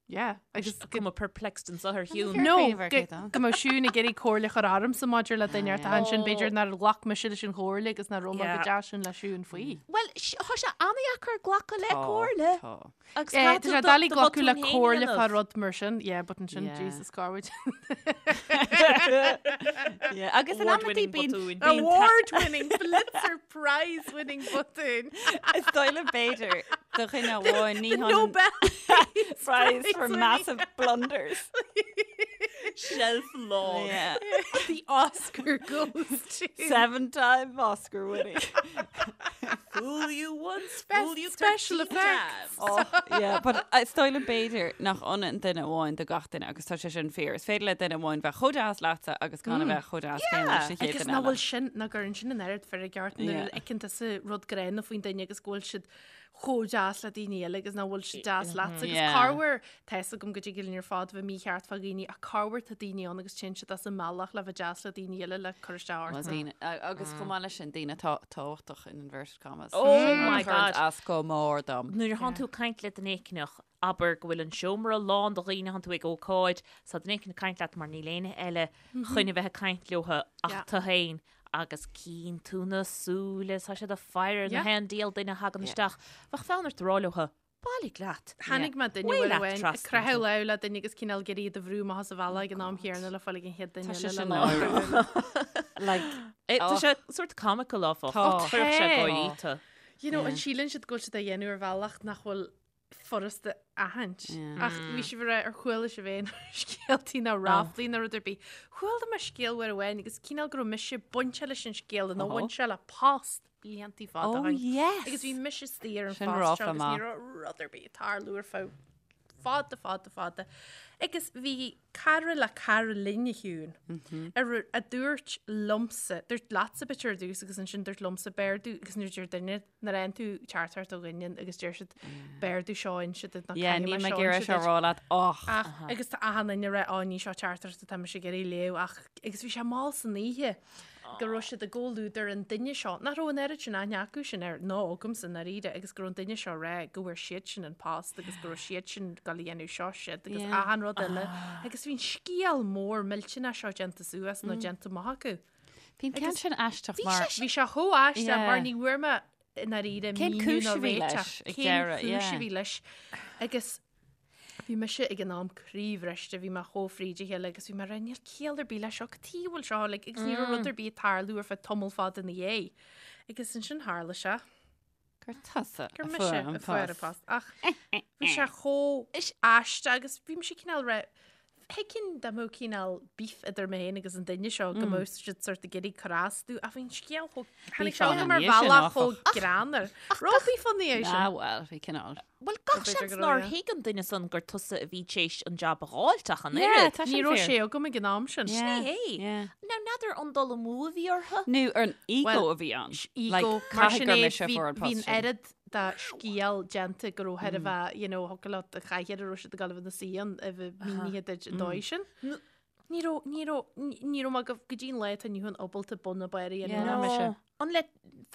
Yeah, agus go- Cuma perplexed anseo ar Shiún. No, Cuimhneamh ar go cé tá. go mbeadh Siún ag iarraidh comhairle a chur ormsa maidir le duine ort Ah, ansin yeah. b'fhéidir nár ghlac mise leis an chomhairle agus nach raibh mé go Yeah. deas sin le Siún faoi. Well, tá sé an-deacair glacadh le Tá, comhairle. tá. Agus Eh, caithfidh Tá sé tú do- doiligh do glacadh le bhotún féin a comhairle fá dhéanamh. rud mar sin, yeah, but ansin Yeah. Jesus Garwood. Yeah, Agus in amantaí Award-winning bíonn botúin. bíonn ta- Award-winning Pulitzer Prize-winning botún. Is dóigh liom b'fhéidir do dhuine amháin ní The hionann Nobel Prize for winning. massive blunders. Shelf long. Yeah. The Oscar goes to Seven-time Oscar winning. Fool you once, Best fool you special 13 effects. times. Oh, yeah, but is dóigh liom b'fhéidir nach ionann duine amháin do gach duine agus tá sé sin fíor. Is féidir le duine amháin bheith chomh deas leatsa agus gan a bheith chomh deas céanna leis an chéad Agus duine nach eile. bhfuil sin nach gcuireann sin an oiread feirge ort nuair Yeah. a fheiceann tusa rud gránna faoin duine agus go bhfuil siad chomh deas le daoine eile agus nach bhfuil siad deas leatsa agus Yeah. corruair tá fhios agam go dtig linn ar fad bheith mícheart fá dhaoine ach corruair tá daoine ann agus téann siad as a mbealach le bheith deas le daoine eile le cur isteach Well, ort. daoine, a- agus chomh maith leis sin daoine atá tábhachtach in inverted commas. Oh Sin rud my a chuireann God. As go mór dom. Nuair a thánn tú ag caint le duine éicneach, abair go bhfuil an seomra lán de dhaoine, thánn tú ag ócáid, 's tá duine éicint ag caint leat mar níl éinne eile chun a bheith ag caint leotha ach Yeah. tu féin agus cíonn tú na súile, tá siad ag faire na Yeah. haon diabhal duine a thagann isteach. Bheadh fonn ort a rá leotha, bailigh leat. Tháinig mé duine Waigh uair leat amháin ag trasna croitheadh tú. lámh le duine agus cineál ag iarraidh iad a bhrú amach as a bhealach ag an am chéanna le fáil ag an chéad duine Tá sé eile le sin lámh. náireach. Like, Eh, Tá Oh. sé sort comical áfach. Tá. Chuirfeadh sé Tá. gáirí tú. You know, an síleann siad go bhfuil siad á dhéanamh ar bhealach nach bhfuil furasta a aithint. Ach bhí sibh ag rá ar chuala sibh aon scéaltaí ná ráflaí ná rud ar bith. Chuala mé scéal uair amháin agus cineál go raibh mise bainte leis an scéal nó bhain sé le post bliantaí fada Oh, ó shin. yes. Agus bhí mise istigh ar an Sin phost ráfla seo agus ní maith. raibh rud ar bith ag tarlú ar feadh fada fada fada. Agus bhí cara le cara linn a Shiún ar a dúirt liomsa, dúirt leatsa b'fhéidir ar dtús agus ansin dúirt liomsa b'fhearr domh agus nuair a deir duine nuair a fhaigheann tú teachtaireacht ó dhuine agus deir siad b'fhearr domh seo a inse duit ná Yeah, caithfidh níl mé mé seo ag iarraidh inse seo duit. rá leat och. Ach agus tá achan duine ag rá á ní seo teachtaireacht atá mise ag iarraidh léamh ach agus bhí sé mall san oíche go raibh siad i gcomhluadar an duine seo nach raibh an oiread sin aithne acu sin air ná agamsa i ndáiríre agus go raibh an duine seo ag rá go bhfuair siad sin an post agus go raibh siad sin ag dul a dhéanamh seo siad agus Yeah. achan rud eile agus bhí an scéal mór millteanach seo déanta suas nó déanta amach acu. Bhí an ceann sin aisteach mar Bhí sé chomh aisteach Yeah. mar ní bhfuair mé i ndáiríre Cén míniú cúis ná a bhí réiteach. leis ag Cén deireadh, cúis yeah. a bhí leis agus bhí mise ag an am croíbhriste, bhí mé chomh fríd a chéile agus bhí mé ag rá níl ciall ar bith leis seo, cad chuige a bhfuil seo like, agus ní raibh rud ar bith ag tarlú ar feadh tamall fada ina dhiaidh. Agus ansin tharla sé. Gur tusa Gur a mise fuair an a fuair an post. post. Ach bhí sé chomh aisteach agus bhí mise cineál rá thuigfinn dá mbeadh cineál beef idir mé féin agus an duine seo go mbeadh siad sort ag iarraidh cur as domh ach bhí an scéal chomh tháinig Beef sé ann chugam ar ina dhiaidh sin, bhealach áfach. chomh greannmhar. Raibh beef ann ina dhiaidh sin. Ah bhuel, bhí cineál. Bhuel, gach B'fhéidir seans go raibh, nár yeah. thuig an duine san gur tusa a bhí tar éis an jab a dh'fháilt ach an Yeah, oiread. tá Ní sin raibh fíor. sé agam ag an am sin. Yeah. Sin é é. Yeah. Now, n'fheadar an dul amú a bhí orthu? Nó ar an ego Well, a bhí ann. Ego, Like, mar caithfidh sin gur é, mise a bhí fuair an bhí post an sin. oiread de scéal déanta go raibh thar a bheith, you know, thiocfadh leat a chathaoir a raibh siad ag dul a bheith ina suí ann a bheith mínithe duit an dóigh sin. Ní raibh, ní raibh, ní raibh mé go go dtí an lá atá inniu ann ábalta bun ná barr a dhéanamh Yeah. ná mise. No. An le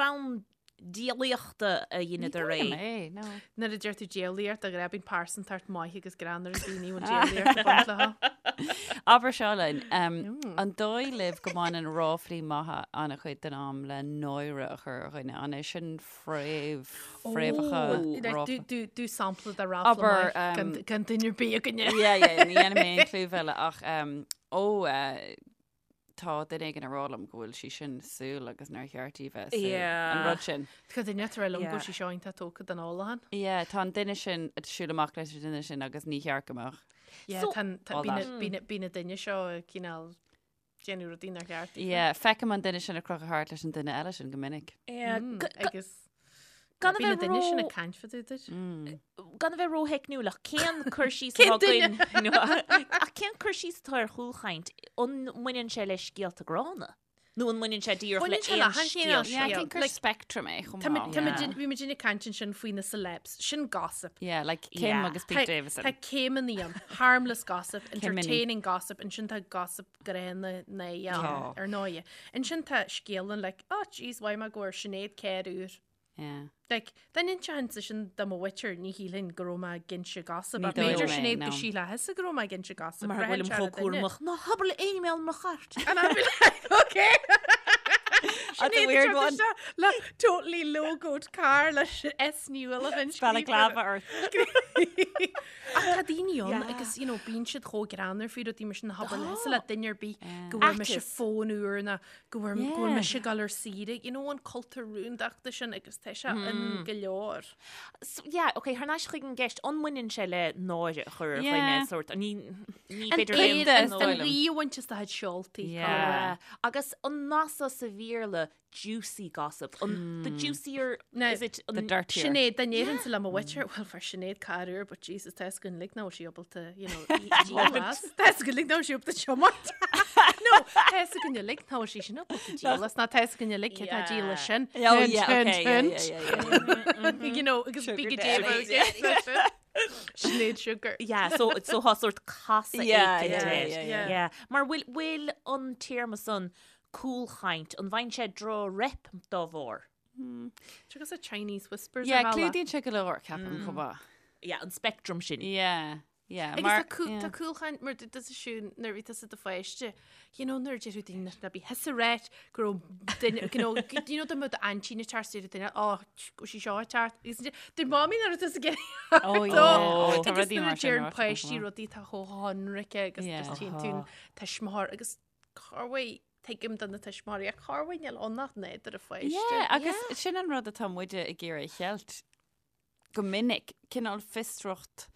fonn diabhlaíochta a dheineadar Ní é? dóigh liom é, no. Nuair a deir tú diabhlaíocht, a ghrá, bíonn pearsantacht maith agus greannmhar ag daoine a bhfuil diabhlaíocht ag baint leo. Abair seo linn, an dóigh libh go mbaineann ráflaí maithe an-chuid den am le náire a chur ar dhuine? An é sin fréamh, fréamhacha ráfla? Do sampla de ráfla Abair, maith gan gan duine ar bith againne. Yeah, yeah, ní dhéanfaidh mé aon clúmhilleadh ach ó tá duine éigin ag rá liom go bhfuil sí sin sual agus nár cheart di bheith sual. Yeah. An rud sin. Tá duine ag rá liom go Yeah. bhfuil sí seo iontach tógtha den ólachán. Yeah, tá an duine sin ag siúl amach leis an duine sin agus ní cheart go mbeadh. Yeah, So- tá an- tá- All bíonn that. na- bíonn na- bíonn na duine seo ag cineál déanamh rudaí nár cheart. Yeah, feicim an duine sin ag crochadh thart leis an duine eile sin go minic. Yeah, Mm, g- g- Agus gan a bíonn na bheith duine sin ró ag caint fá dtaobh duit. Mm. gan a bheith rótheicniúil ach cén cur síos Cén atá duine? againn nó- ach cén cur síos atá ar chúlchaint an mbaineann sé le scéalta gránna? Nó an mbaineann sé díreach le Baineann sé le aon haon scéal? chineál Yeah, I scéal. think gur Like, spectrum é chomh Tá maith. muid- tá muid Yeah. in- bhí muid ag caint ansin faoi na celebs, sin gossip. Yeah, like Kim Yeah. agus Pete Tá Davidson. tá céimeanna ann, harmless gossip, Céimeanna. entertaining gossip, ansin tá gossip gránna na Tá. ar ndóigh. Ansin tá scéalann like, oh jeez, mhaígh mé go bhfuair Sinéad carr úr. Yeah. Like, dá n-inseoinnse sin do mo mhuintir, ní shílfinn go raibh mé ag inse gossip. Ní Ach b'fhéidir dóigh liom é, Sinéad no. go sílfeadh go raibh mé ag inse gossip. Mar go Braitheann bhfuilim sé ar chomh an duine. cúramach. Ná habair le éinne mé mo chairt. And I'd be like, okay. That's a Sinéad weird ag one. teacht isteach Le totally logoed car le S nua le Balaclava ort. Ach tá daoine ann agus you know, bíonn siad chomh greannmhar faoi rudaí mar sin ná habair leatsa le duine ar bith go bhfuair mise Aiteas. fón úr ná go bhfuair go bhfuil Yeah. mise ag dul ar saoire, you know, an cultúr rúndachta sin agus tá sé in go leor. So, yeah, okay, thar n-ais chuig an gceist, an mbaineann sé le náire a chur ar Yeah. dhuine sort, ní ní An féidir éad is an dóigh liom. rí a bhaint as do chuid seoltaí. Yeah. Agus an nath sa Bhéarla juicy gossip, an the juicier, Now, is it The an dirtier. Sinéad, dá ndéarfainnse le mo mhuintir, well fuair Sinéad carr úr, but Jesus, tá fhios againn uilig nach bhfuil sí ábalta, you know, í- díol as. Tá fhios againn uilig nach bhfuil sí ábalta tiomáint. No, tá fhios againn uilig nach bhfuil sí sin ábalta díol as ná tá fhios againn uilig cé tá ag díol as sin. Oh, Hint, yeah, hint, okay, yeah, hint. yeah, yeah, yeah. You know, agus Sugar bí go daddy. dé Sinéad Sugar. Yeah, so, so tá sórt casadh Yeah, éicint yeah, air. yeah, yeah. Yeah. Mar bhfuil, bhfuil an téarma san cúlchaint, an bhfaigheann sé droch-rep dá bharr? Agus a Chinese whispers Yeah, ar bhealach. clúdaíonn sé go leor, ceapaim, chomh maith. Yeah, an spectrum sin. Yeah, yeah. Agus mar- tá cú- yeah. tá cúlchaint mar dúirt tusa Siún nuair a bhí tusa i do pháiste, you know, nuair a deir daoine ná bí thusa ag ráit go raibh duine, you know, you know, dá mbeadh d'aintín ag teacht deir duine, oh, go sí seo ag teacht. Agus deir mamaí nuair atá tusa ag Oh, yeah. Oh, Oh, tá agus rudaí nuair a mar sin deir ráite páistí chomh maith. rudaí atá chomh hionraice agus Yeah. just tchíonn tú an tuismitheoir agus corruair tuigim do na tuismitheoirí ach corruair níl ann ach nádúr an pháiste. Yeah, agus sin an rud atá muide ag iarraidh a cheilt go minic, cineál fiosracht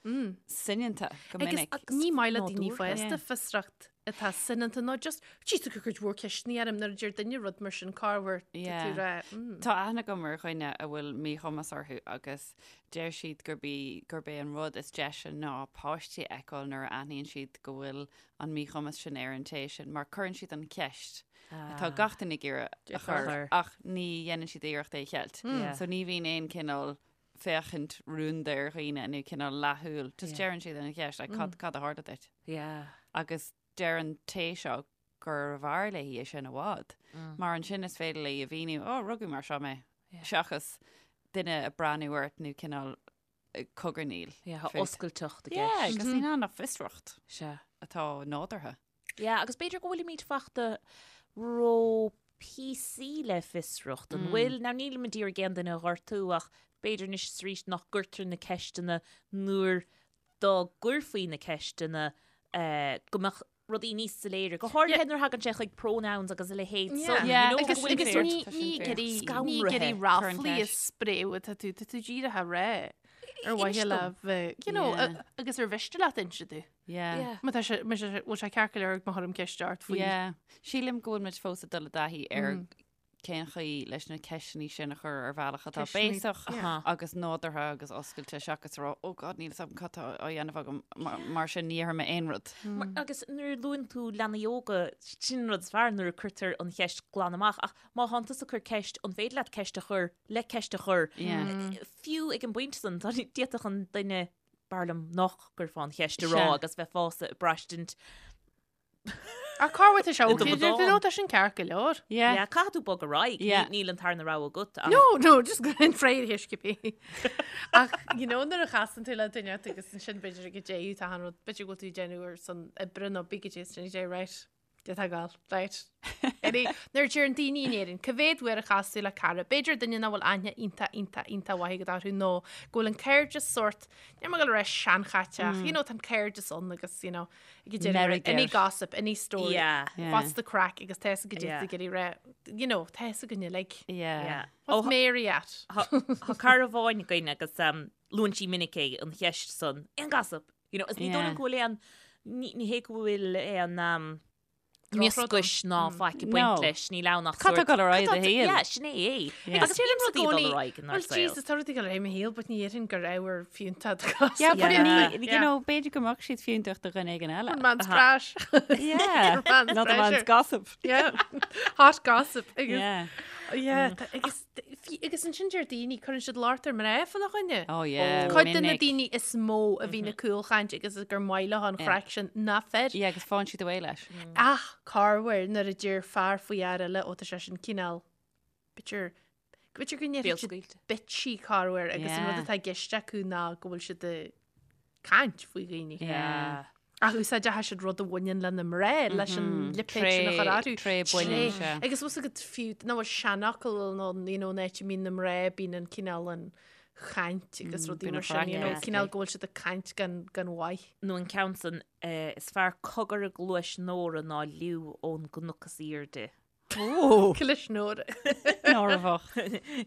soineanta go Agus minic. ní maith le daoine nádúrtha. fásta Yeah. fiosracht atá soineanta nó just jeez tú cuid mhór ceisteanna orm nuair a deir duine rud mar sin corruair tá Yeah. tú rá mm. Tá aithne agam ar dhuine a bhfuil míchumas orthu agus deir siad gurb í gurb é an rud is deise ná páistí a fheiceáil nuair a aithníonn siad go bhfuil an míchumas sin ar an té sin mar cuireann siad an cheist atá gach duine ag iarraidh a chur chur. ach ní dhéanann siad iarracht é a cheilt. Yeah. So ní bhíonn aon cineál féachaint rúnda ar dhaoine nó cineál leathshúil. Just deireann siad an cheist like, cad, cad a tharla duit. Yeah. Agus deir an té seo gurbh fhearr léi é sin i bhfad. Mar ansin is féidir léi a mhíniú, ó, rugadh mar seo mé. Seachas duine ag breathnú ort nó cineál eh, cogarnaíl. Yeah, tá fút. oscailteacht i Yeah, gceist. agus níl ann ach fiosracht Sea. atá nádúrtha. Yeah, agus b'fhéidir go bhfuilimid fachta ró PC le fiosracht. An bhfuil, now nílim ag iarraidh aon duine a ghortú ach b'fhéidir anois is arís nach gcuirtear na ceisteanna nuair dá gcuirfí na ceisteanna eh, go mbeadh rudaí níos soiléire. Go háirithe nuair a thagann sé chuig pronouns agus a leithéid Yeah. san, Yeah, you know, Agus go bhfuil agus sórt ní Tá sin ní fair. ag iarraidh ní ag Scanraithe. iarraidh Cuir an ráflaí a cheist. spréadh atá tú tá tú díreach á rá ar mhaithe Inis le dom. bheith you know Yeah. a- agus ar mhiste leat inse domh. Yeah. Yeah. Má tá sé má sé bhfuil sé ceart go leor má chuirim ceist ort faoi. Yeah. Sílim go bhfuil muid fós ag dul i dtaithí ar cén chaoi leis na ceisteanna sin a chur ar bhealach atá Ceisteanna- béasach Yeah. agus nádúrtha agus oscailte seachas rá oh God níl a fhios agam cad tá á dhéanamh agam mar- mar sin ní dhéarfaidh mé aon rud. Mar- Agus nuair a luann tú leanaí óga, sin an rud is fearr nuair a cuirtear an cheist glan amach, ach má thánn tusa ag cur ceist, an féidir leat ceist a chur le ceist a chur? Yeah. Fiú ag an bpointe san, tá d'fhéadfadh an duine b'fhearr liom nach gcuirfeá an cheist a rá Sea. agus bheifeása ag braistint Ach corruair tá sé I do okay, bhodán. nó tá sin ceart go leor. Yeah. Yeah, caithfidh tú bog ar aghaidh. Yeah. Ní- Níl an tarna rogha agat. ach- No, no, just go an fréir thuisce Ach you know, nuair a chasann tú le duine agus ansin b'fhéidir go dté tá an rud b'fhéidir go bhfuil tú ag déanamh ar son oibre nó bí go dté sin dé right. Dé tá gal, right. Any, nuair a deireann daoine in Éirinn, cá mhéad uair a chas tú le cara, b'fhéidir duine nach bhfuil aithne iontach iontach iontach mhaith agat orthu nó go bhfuil an cairdeas sórt, níl mé ag dul a rá seanchaite ach, you know, tá an cairdeas ann agus, you know, ag deireadh Meirg any air. gossip, any story, Yeah. Yeah. what's the craic agus tá a fhios agat Yeah. go dté rá, you know, tá a fhios againn uilig. Yeah. Yeah. What's Ó, Mary at? Tá tá cara amháin againn agus um, luann sí minic é an cheist san aon gossip. You know, is ní Yeah. dóigh liom go bhfuil aon ní ní hé go bhfuil aon um, Drochrud mioscais ná faic ag baint No. leis, níl ann ach Cad tá sórt- ag dul ar aghaidh Cad i do tá- shaol? Yeah, sin é é. Yeah. Agus bíonn rudaí ag dul ar aghaidh inár Well, saol. Jesus, tá rudaí ag dul ar aghaidh i mo shaol, but ní dhéarfainn gur ábhar fiúntach do gossip. Yeah, but Yeah. ní, you Yeah. know, b'fhéidir go mbeadh siad fiúntach do dhuine éigin eile. Man's trash. Yeah. Man's Not a man's treasure. gossip. Yeah. Hot gossip. Agus, Yeah. yeah, tá- agus, fi- agus ansin deir daoine, cuireann siad locht ar mná fána choinne. Oh yeah. Cuid de na minic. daoine is mó a bhíonn ag cúlchaint agus gur maith leo an chraic sin ná fir. Yeah, agus faigheann siad away leis. Ach corruair nuair a deir fear faoi fhear eile ó tá sé sin cineál b'fhéidir b'fhéidir go ndéarfaidh siad Béalscaoilte. bitchy corruair agus an rud Yeah. atá i gceist acu ná go bhfuil siad ag caint faoi dhaoine. Yeah. Ach úsáideann siad rud a bhaineann le na mná leis an lipéad sin a chur orthu. Tré baineann, sea. Agus bhfuil a fhios agat fiú nach bhfuil seanfhocal nó you know, an áit a mbíonn na mná bíonn an cineál an chaint agus rudaí bíonn mar an sin, you know, chraic cineál go bhfuil siad ag caint gan gan mhaith. Nó an ceann san, eh, is fearr cogar i gcluais Nóra ná liú ón gcnoc is aoirde. Ó, Clis Nóra. Nóra bhocht.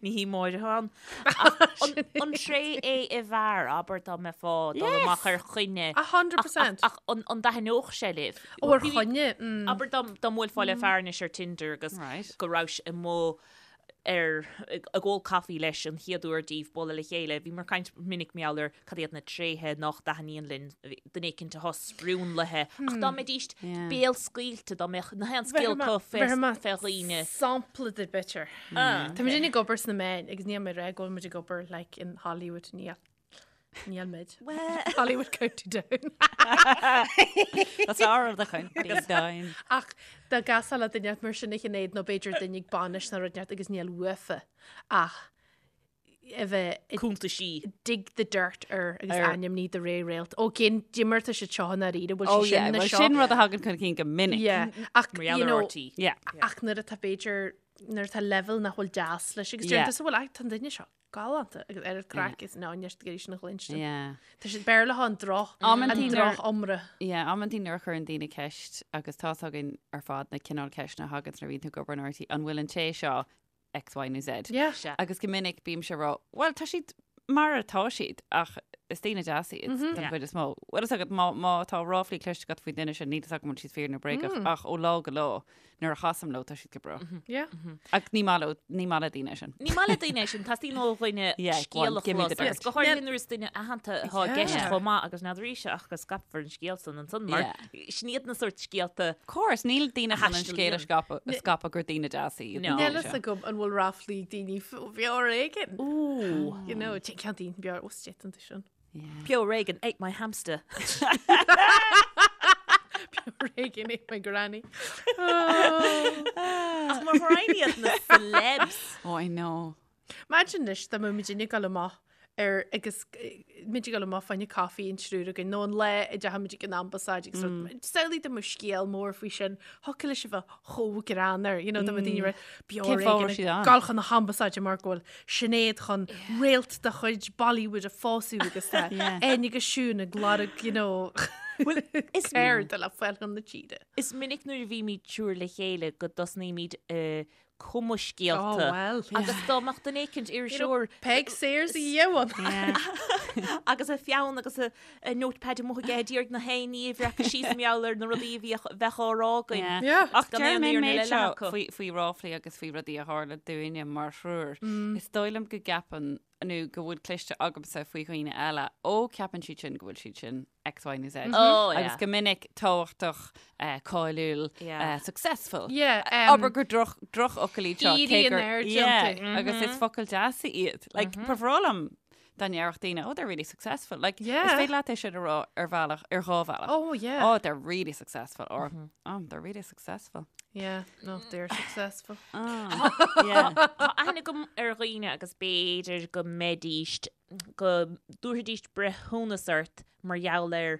Ní hí Máire atá ann. Ach an, an tréith é i bhfear, abair dá mbeifeá ag dul Yes. amach ar choinne. 100%. Ach, ach an, an dtaitneodh sé libh? Ó ar choinne. Mm. Abair dá, dá mbuailfeá le fear anois ar Tinder agus Right. go raibh sé amuigh. ar ag ól caife leis an chéad uair díobh bualadh le chéile, bhíomar ag caint minic mar gheall ar cad iad na tréithe nach dtaitníonn linn duine éicint atá sprionlaithe, ach dá mbeidíst béalscaoilte, dá mbeadh na haon scéal acu fé dhaoine. Sampla duit b'fhéidir. Tá muid ag obair sna meáin agus níl mé ag rá go bhfuil muid ag obair like in Hollywood níl. Níl muid. Hollywood County Down. That's our of the county down. Ach dá gcasfá le duine mar sin a Shinéad nó b'fhéidir duine ag bainis nó rud inteacht agus níl uafa ach a bheith ag Cuntaisí. dig the dirt ar agus Ar- ainmní de réir réalt. Ó cén diomar tá siad seo in dáiríre bhfuil Oh sé yeah, sin na well seo. sin rud a thagann chun cinn go minic. Yeah, ach Mar gheall you ar know, RT. Yeah. ach nuair atá b'fhéidir nuair atá level nach bhfuil deas leis agus Yeah. deir tusa bhfuil ach tá an duine seo galánta agus ar an craic is ná neart go dtí sin a chluinstin. Yeah. Tá siad Béarla an droch Amantaí an nuair- droch iomra. Yeah, amantaí nuair a chuireann daoine ceist agus tá's againn ar fad na cineál ceisteanna a thagann nuair a bhíonn tú ag obair in RTÉ, an bhfuil an té seo X, Y nó Z? Yeah. Sea. Agus go minic bímse ag rá, well tá siad mar atá siad ach is daoine deasa iad den Yeah. chuid is mó. Bhfuil fhios agat má, má tá ráflaí cloiste agat faoin duine sin, níl fhios agam an bhfuil siad fíor nó bréagach ach ó lá go lá nuair a chasaim leo tá siad go breá. Yeah. Ach ní maith leo, ní maith le daoine é sin. Ní maith le daoine é sin, teastaíonn ó dhuine Yeah, go on, scéal a give me the chlos agus dirt. go háirithe nuair is duine aitheanta atá i gceist Yeah. chomh maith agus n'fheadar ise ach go scaipfear an scéal san ansan mar sin iad na sórt scéalta Of course, níl daoine chun an scéal a Thaistil scaipeadh a scaipeadh gur daoine deasa iad. No. na Níl daoine fhios seo. agam an bhfuil ráflaí ag daoine faoi bheo ar éigean. Ooh. You know, ceann daoine beo ó stétan sin. Peo Reagan ate my hamster. Peo Reagan ate my granny. Ach mar thrain iad na celebs. Oh, I know. Imagine anois dá mbeadh muidinne ag dul amach ar agus muid ag dul amach fá choinne caife an triúr againn nó an lá a dteachaigh muid ag an ambasáid agus rud. Samhlaigh dá mbeadh scéal mór faoi sin, thiocfadh leis a bheith chomh greannmhar, you know, dá mbeadh daoine ag rá, Beo Cén fáth a Reagan raibh siad ag ann? dul chun na hambasáide mar go bhfuil Sinéad chun réalt de chuid Bollywood a phósadh agus tá Áine agus Siún ag lorg, you know, is- ceird le fáil chun na tíre. Is minic nuair a bhímid triúr le chéile go dtosnaímid ag cumadh scéalta. Oh, well. Agus dá mbeadh duine éicint iriseoir Peig Sayers a dhéanamh. agus a pheann agus a a notepad amuigh aige ag iarraidh na haon ní a bhreacadh síos mar gheall ar na rudaí a bhíodh bheadh á rá againn. Yeah. Yeah. Ach Gan deir aon mé fhírinne méid le seo acu. faoi, faoi ráflaí agus faoi rudaí a tharla dúinne mar thriúr. Is dóigh liom go gceapann nó go bhfuil cloiste agamsa faoi dhaoine eile, ó ceapann siad sin go bhfuil siad sin X, Y nó Z. Oh, yeah. Agus go minic tábhachtach, eh, cáiliúil, Yeah. eh, successful. Yeah, um, Abair gur droch, drochfhocail iad seo. Éirí cé in gur- airde Yeah, iontu. Agus is focail deasa iad. Like, ba bhreá liom dá ndéarfadh daoine, oh, they're really successful. Like, is Yeah. féidir leat é sin a rá ar bhealach, ar dhá bhealach. Oh, yeah. Oh, they're really successful. Or, oh, they're really successful. Yeah, no, they're successful. Yeah. Tá aithne agam ar dhaoine agus b'fhéidir go mbeidíst, go dtabharfaidíst breithiúnas ort mar gheall ar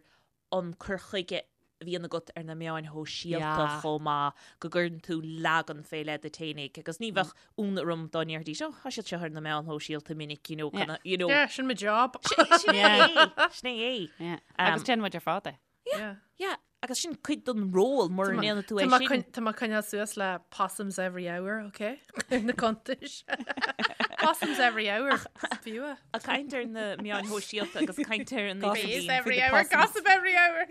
an cur chuige a bhíonn agat ar na meáin shóisialta Yeah. chomh maith, go gcuireann tú leagan fé leith díot fhéinig agus ní bheadh ionadh orm dá ndéarfaidís, oh, tá siad seo ar na meáin shóisialta minic, you know, Yeah. kinda, you know. Yeah, sin mo job. Sin é, sin é. Yeah. Agus déanann muid ar fad é. Yeah. Yeah, agus sin cuid den ról mura ndéanann tú é sin. Tá mé ag coinneáil suas le possums every hour, ok? Ar na cuntais. Possums every hour. Is fiú é. Ag caint ar na meáin shóisialta agus caint ar an Gossip. Bees idirlíon. every the hour, possums. gossip every hour.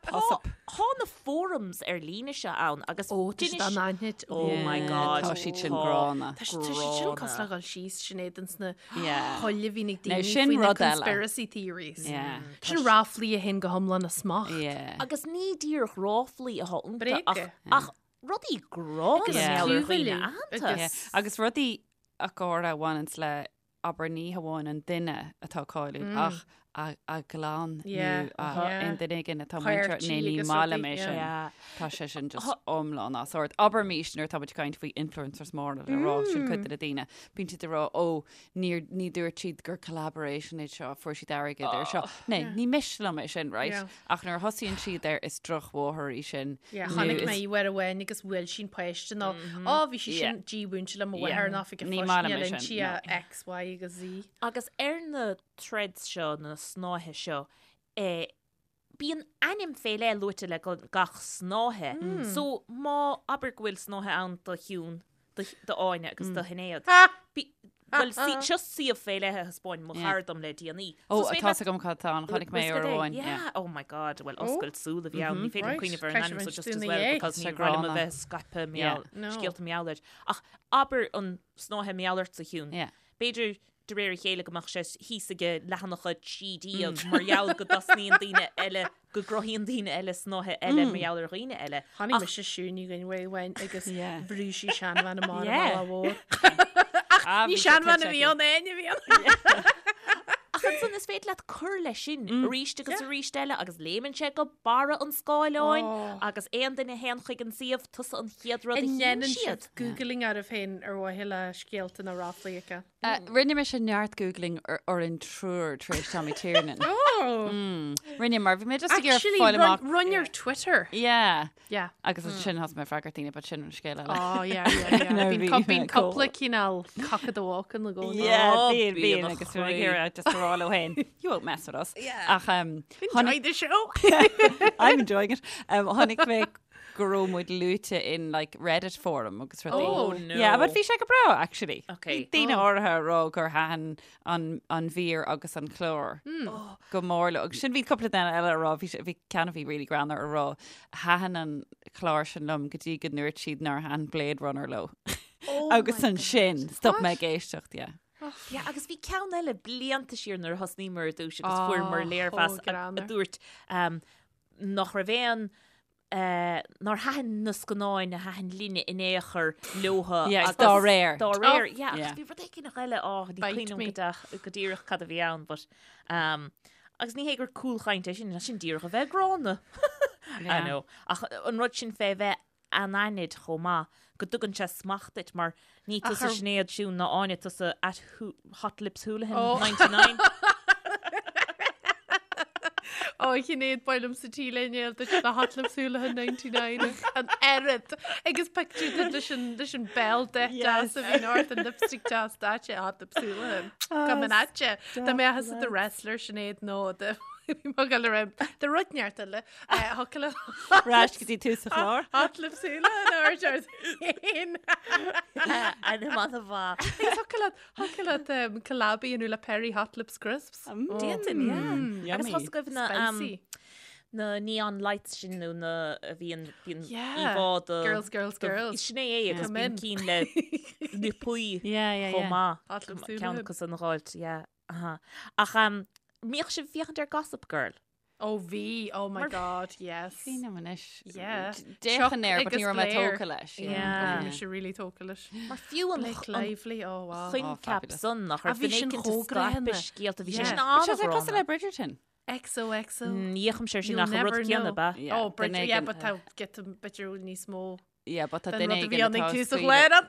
Gossip. Tá na forums ar líne seo ann agus Ó, tá siad d'inis- anaithnid. Oh my Yeah, God. Tá siad sin Tá. gránna. Tá siad tá siad sin Gránna. cosúil le dhul síos Sinéad ins na Yeah. poill a bhíonn ag Now, daoine sin faoi na rud eile. conspiracy theories. Yeah. Sin ráflaí a théann go hiomlán as smacht. Yeah. Agus ní díreach ráflaí atá iontu Bréaga. ach, ach rudaí gránna Agus mar gheall ar dhaoine clúmhilleadh aitheanta. agus- Yeah. Agus rudaí a gáire a bhaineanns le abair ní hamháin an duine atá cáiliúil ach a a gclann Yeah, nó a yeah. aon duine éigin atá Páirtí muinteartha nó ní agus maith liom rudaí, é sin. Yeah. Tá sé sin just iomlán as ord. Abraimis nuair atá muid ag caint faoi influencers móra le rá sin cuid de na daoine. Bíonn siad ag rá ó níor ní dúirt siad gur collaboration é seo, fuair siad airgead ar seo. Né, ní miste liom é sin, right? Yeah. Ach nuair a thosaíonn siad air is drochmháthair í sin. Yeah, nó chonaic is- mé í uair amháin agus bhuail sí an páiste nó á bhí sí Yeah. sin dímhúinte le mo Yeah. mháthair ná fi go Ní maith liom é fáisne sin, sí no. X, Y agus Z. Agus ar na threads seo, na snáithe seo, eh, bíonn ainm fé leith luaite le gach snáithe. So má abair go bhfuil snáithe ann do Shiún, do Áine agus do Shinéad. Bhuel, seo suíomh fé leith a thaispeáin mo chara dom le déanaí. Ó, tá 's agam cad tá ann, chonaic mé uair amháin. Yeah, oh my god, bhuel, oscailt súl a bhí ann, ní féidir liom cuimhneamh ar an ainm so just as well because ní raibh liom a bheith scaipeadh scéalta mar gheall air. Ach abair an snáithe mar gheall ortsa, a Shiún. B'fhéidir de réir a chéile go mbeadh sé thíos ag leathanach 13 mar gheall go dtosnaíonn daoine eile, go gcruthaíonn daoine eile snáithe eile mar gheall ar dhaoine eile. Chonaic mise Siún Ní Dhuinn uair amháin agus bhrúigh sí seanbhean amach ar an mbealach mhór. Ach ní seanbhean a bhí ann, Áine a bhí ann. Ach ansan is féidir leat cur leis sin arís agus arís eile agus léimeann sé go barra an scáileáin agus aon duine a théann chuig an suíomh, tusa an chéad rud a An chíonn ndéanann siad. sibh googling oraibh féin ar mhaithe le scéalta nó ráflaí a fheiceáil? Rinne mise neart googling orainn triúr tar éis Tommy Tiernan. Oh! Rinne mar bhí mé just ag iarraidh Actually, fáil amach. run your Twitter. Yeah. Yeah. Agus ansin thosaigh mé ag freagairt daoine, but sin an scéal eile. Oh, yeah, yeah, yeah. Nuair a Bíonn bhí cu- bíonn mé cool. cúpla cineál cock of the walk in the gcónaí. Yeah, Oh, bíonn, bíonn bíonn a agus bhí mé ag chroí. iarraidh just a rá leo féin, you won't mess with us. Yeah. Ach um, Enjoy the show. I'm enjoying it. Um, chonaic mé go raibh muid luaite in like Reddit forum agus rudaí. Oh, no. Yeah, but bhí sé go breá actually. Okay. Bhí daoine áirithe ag rá gur thaitin an, an mhír agus an clár oh. go mór leo. Agus sin bhí cúpla duine eile ag rá, bhí sé- bhí ceann a bhí really greannmhar ag rá thaitin an clár sin liom go dtí go ndúirt siad nár thaitin Blade Runner leo. Oh agus ansin stop mé ag éisteacht, yeah. Yeah, agus bhí ceann eile blianta siar nuair a thosnaíomar ar dtús agus fuaireamar Oh, léirmheas chomh a, a greannmhar. dúirt um, nach raibh aon nár thaitin na scannáin a thaitin linne in aon chor leotha Yeah, agus dá réir. Dá réir, yeah, Yeah. agus bhí rud éigin eile, á, ní Bite cuimhin me. liom go deach- go díreach cad a bhí ann, but, um, agus ní hé gur cúlchaint é sin, sin díreach a bheith gránna. I Yeah. know. Ach an rud sin fé bheith anaithnid chomh maith, go dtugann sé smacht duit, mar ní tusa ar- Sinéad Siún ná Áine, tusa at Hot Lips Houlihan Oh. 99. Ó, a Shinéad, ba mhaith liom sa t-léine duit na Hot Lips Houlihan 99 an oiread agus pictiúr duit leis an leis an béal deas a bhíonn ort an lipstick deas daite Hot Lips Houlihan. Go an aite. Dá mbeadh tusa i do wrestler Sinéad nó de bhí mo ghoil ar de rud neart eile. Thiocfadh le Ar ais go dtí tús an chláir. Hot Lips Houlihan a ort ort féin. Ainm an-mhaith. Agus thiocfadh leat thiocfadh leat um, collab a dhéanamh le Perry Hot Lips Crisps. D'fhéadfainn, yeah. Agus Yummy. thosaigh agaibh na, um, Spicy. na neon lights sin nó na a bhíonn bíonn Yeah. íomhá do Girls, girls, do- girls. Sin é é agus Come bíonn in. cinn le liopaí Yeah, yeah, chomh yeah. maith. Hot Lips Ceann Houlihan. acu san a dh'fháilt, yeah. Aha. Ach um, mbíodh sibh ag féachaint ar Gossip Girl? Ó bhí, oh my god, yes. Cuimhním anois. Yeah. D'fhéachainn air, but Chuck ní raibh mé agus Blair. tógtha leis. Yeah. Bhí mise really tógtha leis. Mar fiú an Blake Lively, oh wow. coincheap fabulous. san nach Ah, raibh bhí duine sin éicint chomh ag scaipeadh greannmhar. scéalta, bhí sé Yeah. sin But sé cosúil an-ghránna. le Bridgerton. XOXO. Ní fhéachaimse air sin You'll ach an rud never céanna, know. ba. Yeah, Oh, Bridger, duine yeah, éigin- but tá get b'fhéidir níos mó Yeah, but tá den duine rud a bhí éigin ann ag atá tús an scaoileadh. chláir ann.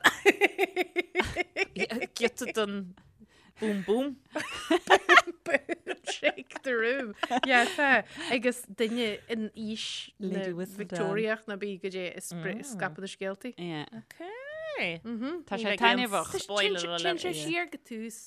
Giota den boom boom. Boom, shake the room. Yeah, tá. Agus duine in aois na Lady Whistledown. Victoriach ná bí go dé is scaipeadh na scéaltaí. Yeah. Okay. Tá Ní sé bheidh aon taitneamhach. spoiler alert. Téann sé siar go tús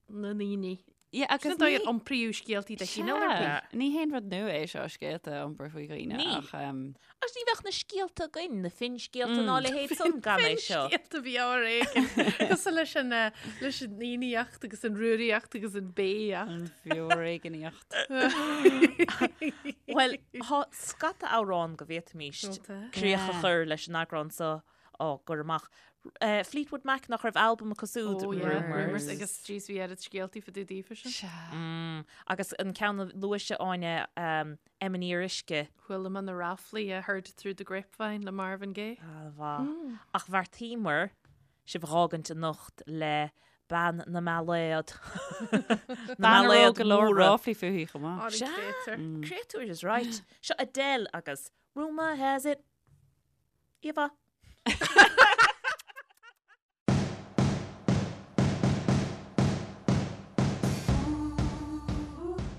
na ndaoine. Yeah, Sin agus an dóigh ní- ar iompraíodh scéaltaí de chineál ar bith. Sea, ní haon rud nua é seo scéalta a iompar faoi dhaoine Ní. ach um, Agus ní bheadh na scéalta againn, na finscéalta ná a leithéid san gan é seo. Finscéalta bhí ar éigean. Cosúil leis an, eh, leis an fhiannaíocht agus an rúraíocht agus an béíocht. an bhfioréigníocht. Bhuel, tá scata amhrán go bhféadfaimis Tá. críoch a Yeah. chur leis an eagrán seo á gcur amach. Fleetwood Mac nach raibh albam acu siúd, Oh, yeah. Rumours. Rumours agus jeez bhí oiread scéaltaí fá dtaobh daofa sin. Sea. Mm, agus an ceann a luaigh Áine, um, Emyn Uisce. Chuala mé na ráflaí I heard through the grapevine le Marvin Gaye. An-mhaith. Ach bheartaíomar sibh a dh'fhágaint anocht le Bean na mBailéad. Na Bean a raibh mBailéad go leor móra. ráflaí fúithi chomh maith. Sea. Créatúr. Créatúr is right. Seo Adele agus Rumour has it. Íomhá.